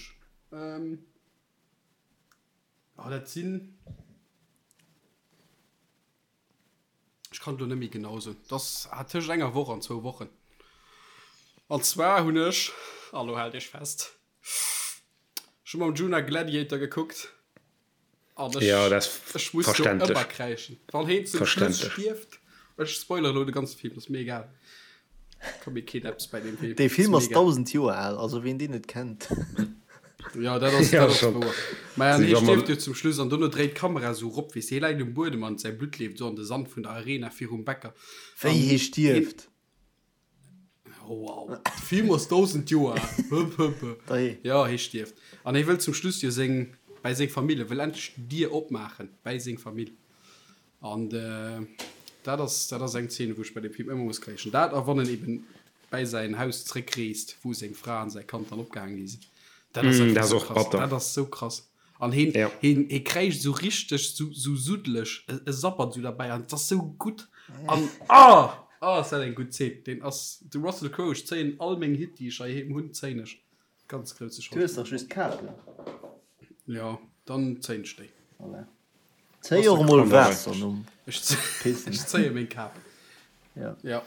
Speaker 3: Oh, dat sinn. Ech kann et elo net méi genau soen. Et ass tëscht enger Woch an zwou Wochen. An zwar hunn ech, a lo haalt iech fest, ech hu mam Djuna Gladiator gekuckt. An ech,
Speaker 1: ja, dat
Speaker 3: ech muss do ëmmer kräischen. Wann heen zum Schluss stierft, ech spoilere lo de ganze Film, ass mir egal. Ka mir keen eppes bei
Speaker 2: deem Film. Dee Film ass 1000 Joer al, also ween deen net kennt.
Speaker 3: Ja, dat ass, dat ass wouer. Mä an hee stierft jo zum Schluss an dono dréit d'Kamera esou rop, weess de, hie läit um Buedem an säi Blutt leeft esou an de Sand vun der Arena virum Bäcker.
Speaker 2: Wéi hie stierft?
Speaker 3: Oh, wow. De Film ass 1000 Joer al. Ja, hie stierft. An hie wëll zum Schluss jo seng, bäi seng Famill, e wëll endlech d'Dier opmaachen bäi seng Famill. An dat ass, dat ass eng Zeen, wou ech bei deem Film ëmmer muss kréischen. Dat a wann en eben bäi säin Haus zréckreest, wou seng Fra an säi Kand dann opgehaang gi sinn. Dat ass
Speaker 1: einfach
Speaker 3: dat
Speaker 1: ass
Speaker 3: esou
Speaker 1: och
Speaker 3: krass.
Speaker 1: batter.
Speaker 3: Dat ass esou krass. An heen,
Speaker 1: Ja.
Speaker 3: heen, hee kräischt esou richteg, esou, esou suddeleg, e, e sabbert esou derbäi an et ass esou gutt. An ah! Ah, ass dat eng gutt Zeen. Deen ass, de Russell Crowe, ech zéien all meng Hitt, déi ech heiheem hunn, zéien ech. Ganz grousse
Speaker 2: Du hues dach just Kapen.
Speaker 3: Jo, dann zéien ech déi.
Speaker 2: Voilà. Zéi och emol Waasser nom
Speaker 3: Pissen. Ech zéie meng Kap.
Speaker 2: Ja.
Speaker 3: Ja.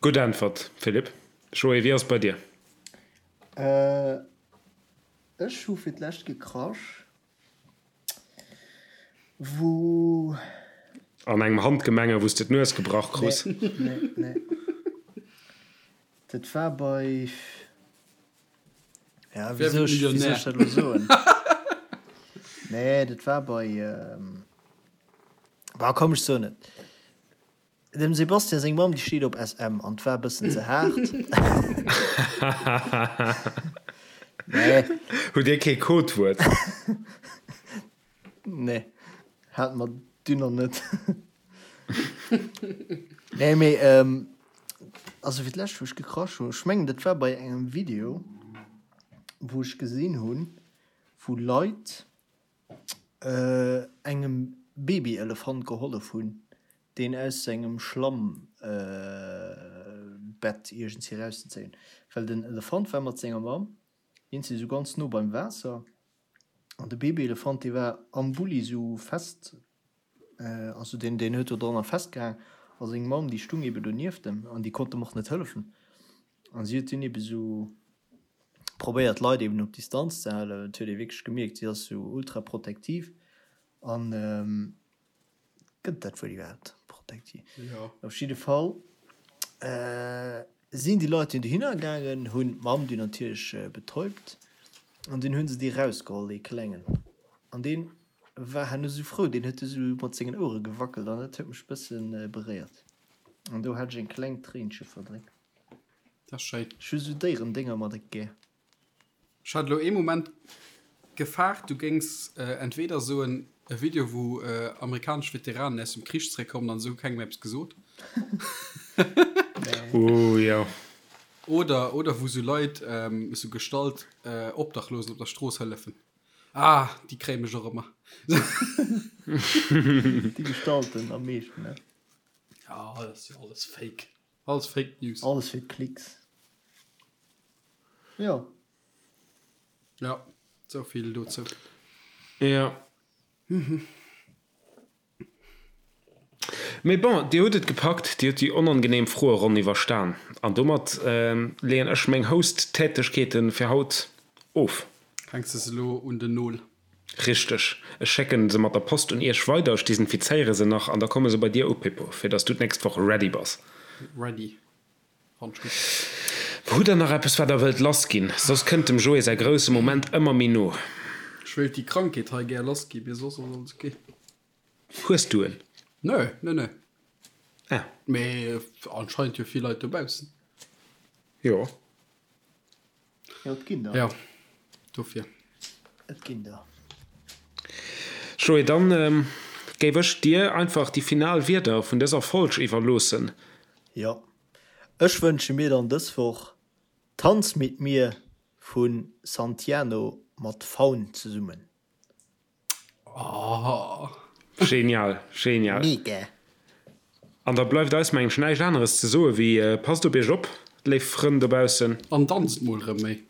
Speaker 1: Gutt Äntwert, Philippe. Joé, wéi ass et bei dir?
Speaker 2: Ech hu fir d'lescht gekrasch, wou.
Speaker 1: An engem Handgemenge, wou s de d'Nues gebrach krus.
Speaker 2: Nee, nee, nee. Dat war bei. Ja, wéi soll ech, wéi soll ech dat elo soen? Nee, dat war bei, bah, komm, ech soen et. Dem Sebastian seng Mamm, déi steet op SM an 't war e bëssen ze haart. Nee.
Speaker 1: Hutt Dir kee Codewuert?
Speaker 2: Nee, hate mer dunn nach net. Nee, mee also fir d'lescht wou ech gekrasch hunn, ech mengen dat war bei engem Video wou ech gesinn hunn, wou Leit engem Babyelefant gehollef hunn, deen aus sengem Schlammbett iergendwéi erauszezéien. Well den Elefant war mat senger Mamm iergendwéi esou ganz no beim Waasser An de Babyelefant, dee war am Bulli sou fest, also deen, deen huet do dranner festgehaang. A seng Mamm, déi stung ebe donieft em an déi konnt em och net hëllefen. An si huet dunn ebe sou probéiert, d'Leit eben op Distanz ze halen. Et huet ee wierklech gemierkt, si ass sou ultra protektiv. An. Gëtt dat Wuert iwwerhaapt? Protekti.
Speaker 3: Jo.
Speaker 2: Op jidde Fall sinn déi Leit dunn dohinner gaangen, hunn d'Mamm dunn natierlech betäubt an dunn hu se dee rausgeholl, dee Klengen. An dee war herno sou frou, deen huet du sou mat sengen Ouere gewackelt an dat huet mech e bësse beréiert. An do hat ech eng kleng Tréinche verdréckt.
Speaker 3: Dat ass schéin.
Speaker 2: Ech hu sou Déierendénger mat et gär.
Speaker 3: Ech hat elo ee Moment gefaart du géings entweder soen e Video wou amerikanesch Veteranen aus dem Krich zeréckkommen an se hu kengem eppes gesot.
Speaker 1: Ooh jo.
Speaker 3: Oder oder wou sou Leit sou gestallt Obdachlosen op der Strooss hëllefen. Ah déi kréie mech och ëmmer.
Speaker 2: Déi Gestalten am meeschten ne?
Speaker 3: Ja dat ass jo alles fake. Alles Fake News.
Speaker 2: Alles fir d'Klicks. Jo.
Speaker 3: Ja, sou vill dozou.
Speaker 1: Jo. Mee bon, Dir hutt et gepackt, Dir hutt déi onangenehm Froeronn iwwerstan. An domat leeën ech meng Host-Tätegkeete fir haut of.
Speaker 3: Hänks de se elo un den Nol?
Speaker 1: Richteg. Ech schécken se mat der Post un iech weider, ech desinfizéiere se nach an da komme se bei dir u, Pippo, fir dass du d'nächst Woch ready bass.
Speaker 3: Ready. Fannt ech gutt.
Speaker 1: Hutt der nach eppes wat der wëllt lass ginn? Soss kënnt dem Joé säi grousse Moment ëmmer méi no.
Speaker 3: Ech wéilt déi Krankheet hei gär lass ginn, mee soss ass alles ok.
Speaker 1: Hues du en?
Speaker 3: Nö, nö, nö.
Speaker 1: Ah.
Speaker 3: Mee anscheinend jo vill Leit dobaussen.
Speaker 1: Jo.
Speaker 2: Jo, et ginn der.
Speaker 3: Jo, dofir.
Speaker 2: Et ginn der.
Speaker 1: Joé, dann géif ech dir einfach déi final Wierder vun dëser Folg iwwerloossen.
Speaker 2: Jo, ech wënsche mir dann dës Woch. Tanz mit mir vu Santiano mat Faun zesummen.
Speaker 1: Oh. Genial, genial.
Speaker 2: Mega.
Speaker 1: An da bleift eis mengen ech näischt aneres ze soe wéi, passt op iech op, léif Frënn dobaussen.
Speaker 3: An danzt mol rëm méi.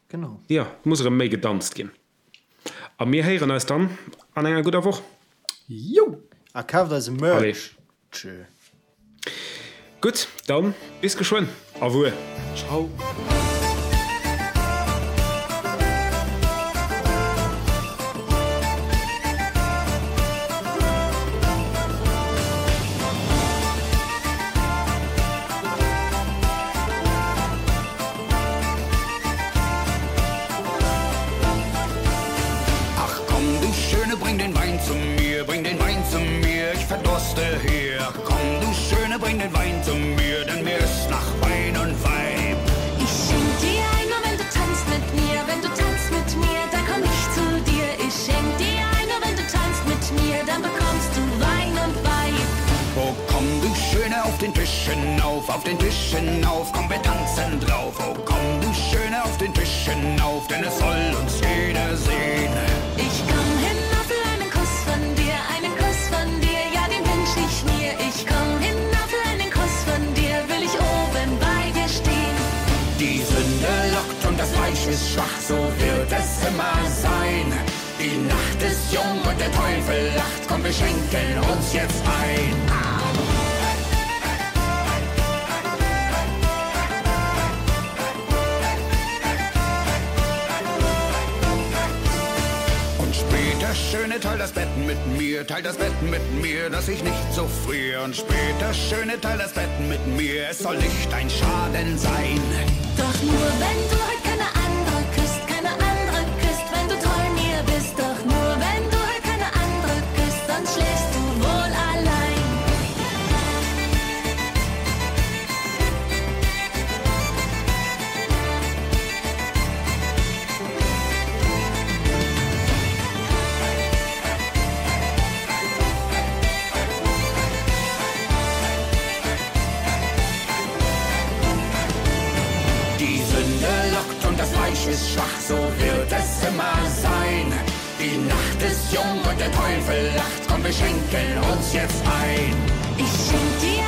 Speaker 2: Genau.
Speaker 1: Jo, et muss erëm méi gedanzt ginn. A mir héieren eis dann an enger gudder Woch.
Speaker 3: Jou!
Speaker 2: A kaaft eise Merch. Tschö.
Speaker 1: Gutt, dann bis geschwënn. Au revoir.
Speaker 3: Ciao.
Speaker 4: Ach komm du Schöne, bring den Wein zu mir, bring den Wein zu mir, ich verdurste hier. Ach komm du Schöne, bring den Wein zu mir, denn mir ist nach Wein und Weib.
Speaker 5: Ich schenk dir ein, nur wenn du tanzt mit mir, wenn du tanzt mit mir, dann komm ich zu dir. Ich schenk dir ein, nur wenn du tanzt mit mir, dann bekommst du Wein und Weib.
Speaker 4: Oh komm du Schöne, auf den Tisch hinauf, auf den Tisch hinauf, komm wir tanzen drauf. Oh komm du Schöne, auf den Tisch hinauf, denn es soll uns jeder sehn.
Speaker 5: Ich komm hinauf für einen Kuss von dir, einen Kuss von dir, ja den wünsch ich mir. Ich komm hinauf für einen Kuss von dir, will ich oben bei dir stehn.
Speaker 4: Die Sünde lockt und das Fleisch ist schwach, so wird es immer sein. Die Nacht ist jung und der Teufel lacht, komm wir schenken uns jetzt ein. Und später, Schöne, teil das Bett mit mir, teil das Bett mit mir, dass ich nicht so frier. Und später, Schöne, teil das Bett mit mir, es soll nicht dein Schaden sein.
Speaker 5: Doch nur wenn du heut keine andere küsst, keine andere küsst, wenn du treu mir bist. Doch nur wenn du heut keine andere küsst, sonst schläfst du wohl allein.
Speaker 4: Die Sünde lockt und das Fleisch ist schwach, so wird es immer sein. Die Nacht ist jung und der Teufel lacht, komm, wir schenken uns jetzt ein.
Speaker 5: Ich schenk dir.